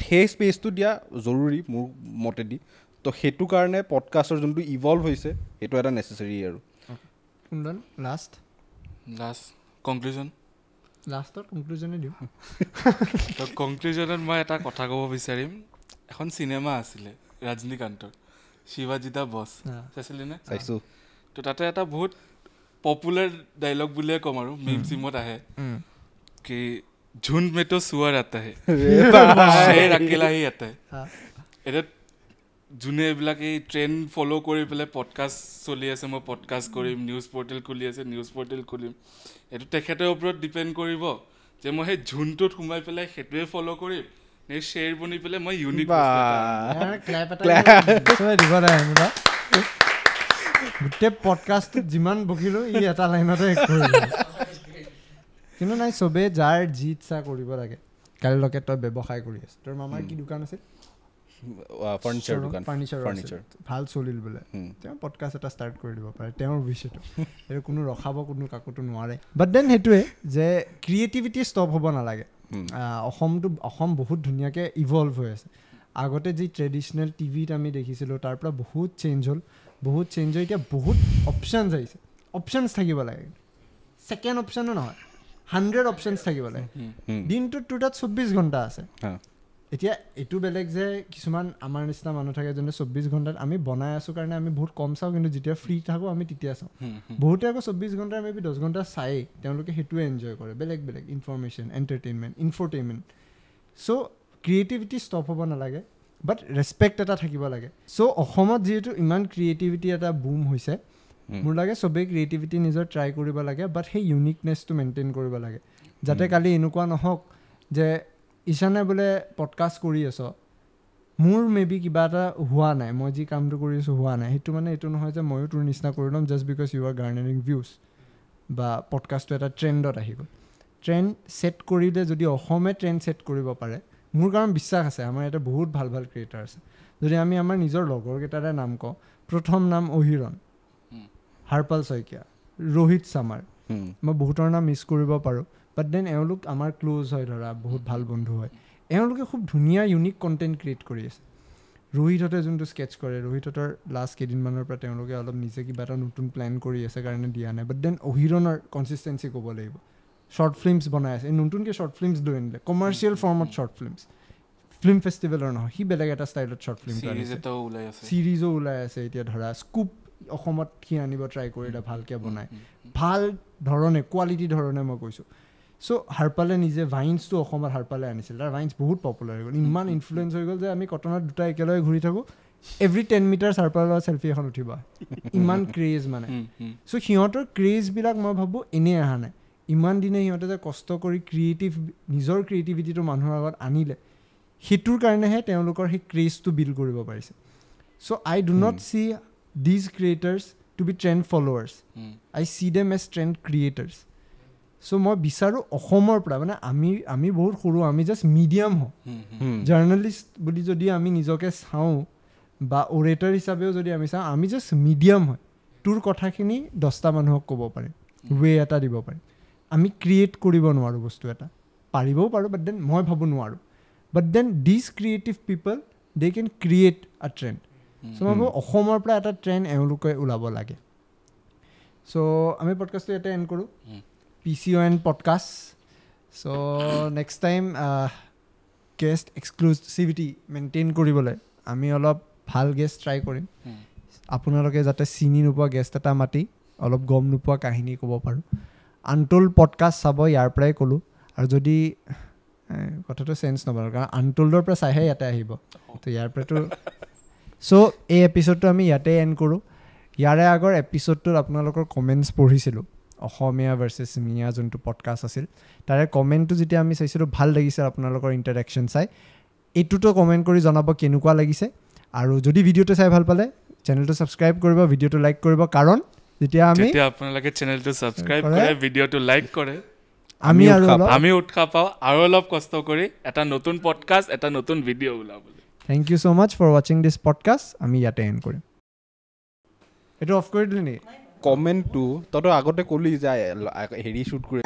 সেই স্পেচটো দিয়া জৰুৰী মোৰ মতেদি। তো সেইটো কাৰণে পডকাষ্টৰ যোনটো ইভল্ভ হৈছে সেইটো এটা নেচেচাৰী। আৰু লাষ্ট কনক্লুজন, লাষ্টত কনক্লুজনে দিওঁ। তো কনক্লুজনত মই এটা কথা ক'ব বিচাৰিম। এখন চিনেমা আছিলে ৰজনীকান্তৰ, শিৱাজী দা বছ, চাইছিলি নে? চাইছোঁ। তো তাতে এটা বহুত পপুলাৰ ডাইলগ বুলিয়ে ক'ম আৰু, মিম চিমত আহে কি ঝুণ্ড মে তো সুৱাৰ আতা হে, শ্বেৰ আকেলা হি আতা হে। এতিয়া যোনে এইবিলাক এই ট্ৰেণ্ড ফ'ল' কৰি পেলাই পডকাষ্ট চলি আছে, মই পডকাষ্ট কৰিম, নিউজ পৰ্টেল খুলি আছে, নিউজ পৰ্টেল খুলিম, এইটো তেখেতৰ ওপৰত ডিপেণ্ড কৰিব যে মই সেই ঝুণ্ডটোত সোমাই পেলাই সেইটোৱে ফ'ল' কৰিম নে শ্বেৰ বনি পেলাই মই ইউনিক। গোটেই পডকাষ্টটোত যিমান বকিলোঁ ই এটা লাইনতে কৰিলোঁ। কিন্তু নাই, চবেই যাৰ যি ইচ্ছা কৰিব লাগে। কালিলৈকে তই ব্যৱসায় কৰি আছ, তোৰ মামাৰ কি দোকান আছিল? ফাৰ্নিচাৰ ভাল চলিল বোলে, তেওঁ পডকাষ্ট এটা ষ্টাৰ্ট কৰি দিব পাৰে, তেওঁৰ বিষয়টো সেইটো কোনো ৰখাব কোনো কাকোতো নোৱাৰে। বাট then সেইটোৱে যে ক্ৰিয়েটিভিটি ষ্টপ হ'ব নালাগে। অসম বহুত ধুনীয়াকৈ ইভল্ভ হৈ আছে। আগতে যি ট্ৰেডিশ্যনেল টিভিত আমি দেখিছিলোঁ তাৰ পৰা বহুত চেঞ্জ হ'ল, বহুত চেঞ্জ হৈ এতিয়া বহুত অপশ্যনছ আহিছে। অপশ্যনছ থাকিব লাগে, ছেকেণ্ড অপশ্যনো নহয়, 100 অপশ্যনছ থাকিব লাগে। দিনটোত তোৰ তাত 24 ঘণ্টা আছে। এতিয়া এইটো বেলেগ যে কিছুমান আমাৰ নিচিনা মানুহ থাকে যোনে 24 ঘণ্টাত আমি বনাই আছোঁ কাৰণে আমি বহুত কম চাওঁ, কিন্তু যেতিয়া ফ্ৰী থাকোঁ আমি তেতিয়া চাওঁ। বহুতে আকৌ 24 ঘণ্টাৰ মে বি 10 ঘণ্টা চায়েই, তেওঁলোকে সেইটোৱে এনজয় কৰে, বেলেগ বেলেগ information, entertainment, infotainment. So creativity stop হ'ব নালাগে, বাট ৰেচপেক্ট এটা থাকিব লাগে। চ' অসমত যিহেতু ইমান ক্ৰিয়েটিভিটি এটা বুম হৈছে, মোৰ লাগে চবেই ক্ৰিয়েটিভিটি নিজৰ ট্ৰাই কৰিব লাগে, বাট সেই ইউনিকনেছটো মেইনটেইন কৰিব লাগে, যাতে কালি এনেকুৱা নহওক যে ঈশানে বোলে পডকাষ্ট কৰি আছ, মোৰ মে বি কিবা এটা হোৱা নাই, মই যি কামটো কৰি আছোঁ হোৱা নাই, সেইটো মানে এইটো নহয় যে ময়ো তোৰ নিচিনা কৰি ল'ম just because you are garnering views বা পডকাষ্টটো এটা ট্ৰেণ্ডত আহি গ'ল। ট্ৰেণ্ড ছেট কৰিলে যদি অসমে ট্ৰেণ্ড ছেট কৰিব পাৰে, মোৰ কাৰণ বিশ্বাস আছে আমাৰ ইয়াতে বহুত ভাল ভাল ক্ৰিয়েটাৰ আছে। যদি আমি আমাৰ নিজৰ লগৰকেইটাৰে নাম কওঁ, প্ৰথম নাম অহিৰণ, হাৰপাল শইকীয়া, ৰোহিত চামাৰ, মই বহুতৰ নাম মিছ কৰিব পাৰোঁ, বাট then এওঁলোক আমাৰ ক্ল'জ হয়, ধৰা বহুত ভাল বন্ধু হয়, এওঁলোকে খুব ধুনীয়া ইউনিক কণ্টেণ্ট ক্ৰিয়েট কৰি আছে। ৰোহিতহঁতে যোনটো স্কেটছ কৰে, ৰোহিতহঁতৰ লাষ্ট কেইদিনমানৰ পৰা তেওঁলোকে অলপ নিজে কিবা এটা নতুন প্লেন কৰি আছে কাৰণে দিয়া নাই, বাট then অহিৰণৰ কনচিষ্টেঞ্চি ক'ব লাগিব, শ্বৰ্ট ফিল্মছ বনাই আছে, নতুনকৈ শ্বৰ্ট ফিল্মছ লৈ আনিলে, কমাৰ্চিয়েল ফৰ্মত শ্বৰ্ট ফিল্মছ, ফিল্ম ফেষ্টিভেলৰ নহয়, সি বেলেগ এটা ষ্টাইলত শ্বৰ্ট ফিল্ম চিৰিজো ওলাই আছে এতিয়া, ধৰা স্কুপ অসমত সি আনিব ট্ৰাই কৰিলে, ভালকৈ বনায়, ভাল ধৰণে, কোৱালিটি ধৰণে মই কৈছোঁ। চ' হাৰপালে নিজে ভাইন্সটো অসমত হাৰপালে আনিছিল, তাৰ ভাইন্স বহুত পপুলাৰ হৈ গ'ল, ইমান ইনফ্লুৱেঞ্চ হৈ গ'ল যে আমি কটনত দুটা একেলগে ঘূৰি থাকোঁ, এভৰি 10 মিটাৰ্ছ হাৰপালৰ চেলফি এখন উঠিব, ইমান ক্ৰেজ মানে। চ' সিহঁতৰ ক্ৰেজবিলাক মই ভাবোঁ এনেই অহা নাই, ইমান দিনে সিহঁতে যে কষ্ট কৰি ক্ৰিয়েটিভ, নিজৰ ক্ৰিয়েটিভিটিটো মানুহৰ আগত আনিলে, সেইটোৰ কাৰণেহে তেওঁলোকৰ সেই ক্ৰেজটো বিল্ড কৰিব পাৰিছে। So I do not see these creators to be trend followers, I see them as trend creators. So মই বিচাৰোঁ অসমৰ পৰা, মানে আমি বহুত সৰু, আমি জাষ্ট মিডিয়াম হওঁ, জাৰ্ণালিষ্ট বুলি যদি আমি নিজকে চাওঁ বা অৰেটৰ হিচাপেও যদি আমি চাওঁ, আমি জাষ্ট মিডিয়াম হয়, তোৰ কথাখিনি 10টা মানুহক ক'ব পাৰিম, ৱে এটা দিব পাৰিম, আমি ক্ৰিয়েট কৰিব নোৱাৰোঁ বস্তু এটা, পাৰিবও পাৰোঁ বাট then মই ভাবোঁ নোৱাৰোঁ, but then these creative people they can create a trend. So মই ভাবোঁ অসমৰ পৰা এটা ট্ৰেণ্ড এওঁলোকে ওলাব লাগে। চ' আমি পডকাষ্টটো ইয়াতে এণ্ড কৰোঁ, PCON podcast. So next time guest exclusivity maintain কৰিবলৈ আমি অলপ ভাল গেষ্ট ট্ৰাই কৰিম, আপোনালোকে যাতে চিনি নোপোৱা গেষ্ট এটা মাতি অলপ গম নোপোৱা কাহিনী ক'ব পাৰোঁ। আনটোল্ড পডকাষ্ট চাব, ইয়াৰ পৰাই ক'লোঁ, আৰু যদি কথাটো চেঞ্জ নবনাওঁ কাৰণ আনটোল্ডৰ পৰা চাইহে ইয়াতে আহিব, তো ইয়াৰ পৰাতো। চ' এই এপিছ'ডটো আমি ইয়াতে এণ্ড কৰোঁ। ইয়াৰে আগৰ এপিছ'ডটোত আপোনালোকৰ কমেণ্টছ পঢ়িছিলোঁ, অসমীয়া ভাৰ্চেছ মিয়া যোনটো পডকাষ্ট আছিল, তাৰে কমেণ্টটো যেতিয়া আমি চাইছিলোঁ ভাল লাগিছে আপোনালোকৰ ইণ্টাৰেকশ্যন চাই। এইটোতো কমেণ্ট কৰি জনাব কেনেকুৱা লাগিছে, আৰু যদি ভিডিঅ'টো চাই ভাল পালে চেনেলটো ছাবস্ক্ৰাইব কৰিব, ভিডিঅ'টো লাইক কৰিব, কাৰণ যেতিয়া আমি আপোনালোকে চেনেলটো ছাবস্ক্ৰাইব কৰে, ভিডিঅ'টো লাইক কৰে, আমি আৰু আমি উৎসাহ পাওঁ আৰু অলপ কষ্ট কৰি এটা নতুন পডকাষ্ট, এটা নতুন ভিডিঅ' ওলাবলৈ। Thank you so much for watching this podcast. আমি ইয়াতে এণ্ড কৰিম। এইটো অফ কৰি দিলি নেকি? কমেণ্টটো তই আগতে ক'লি যে হেৰি শ্বুট কৰি।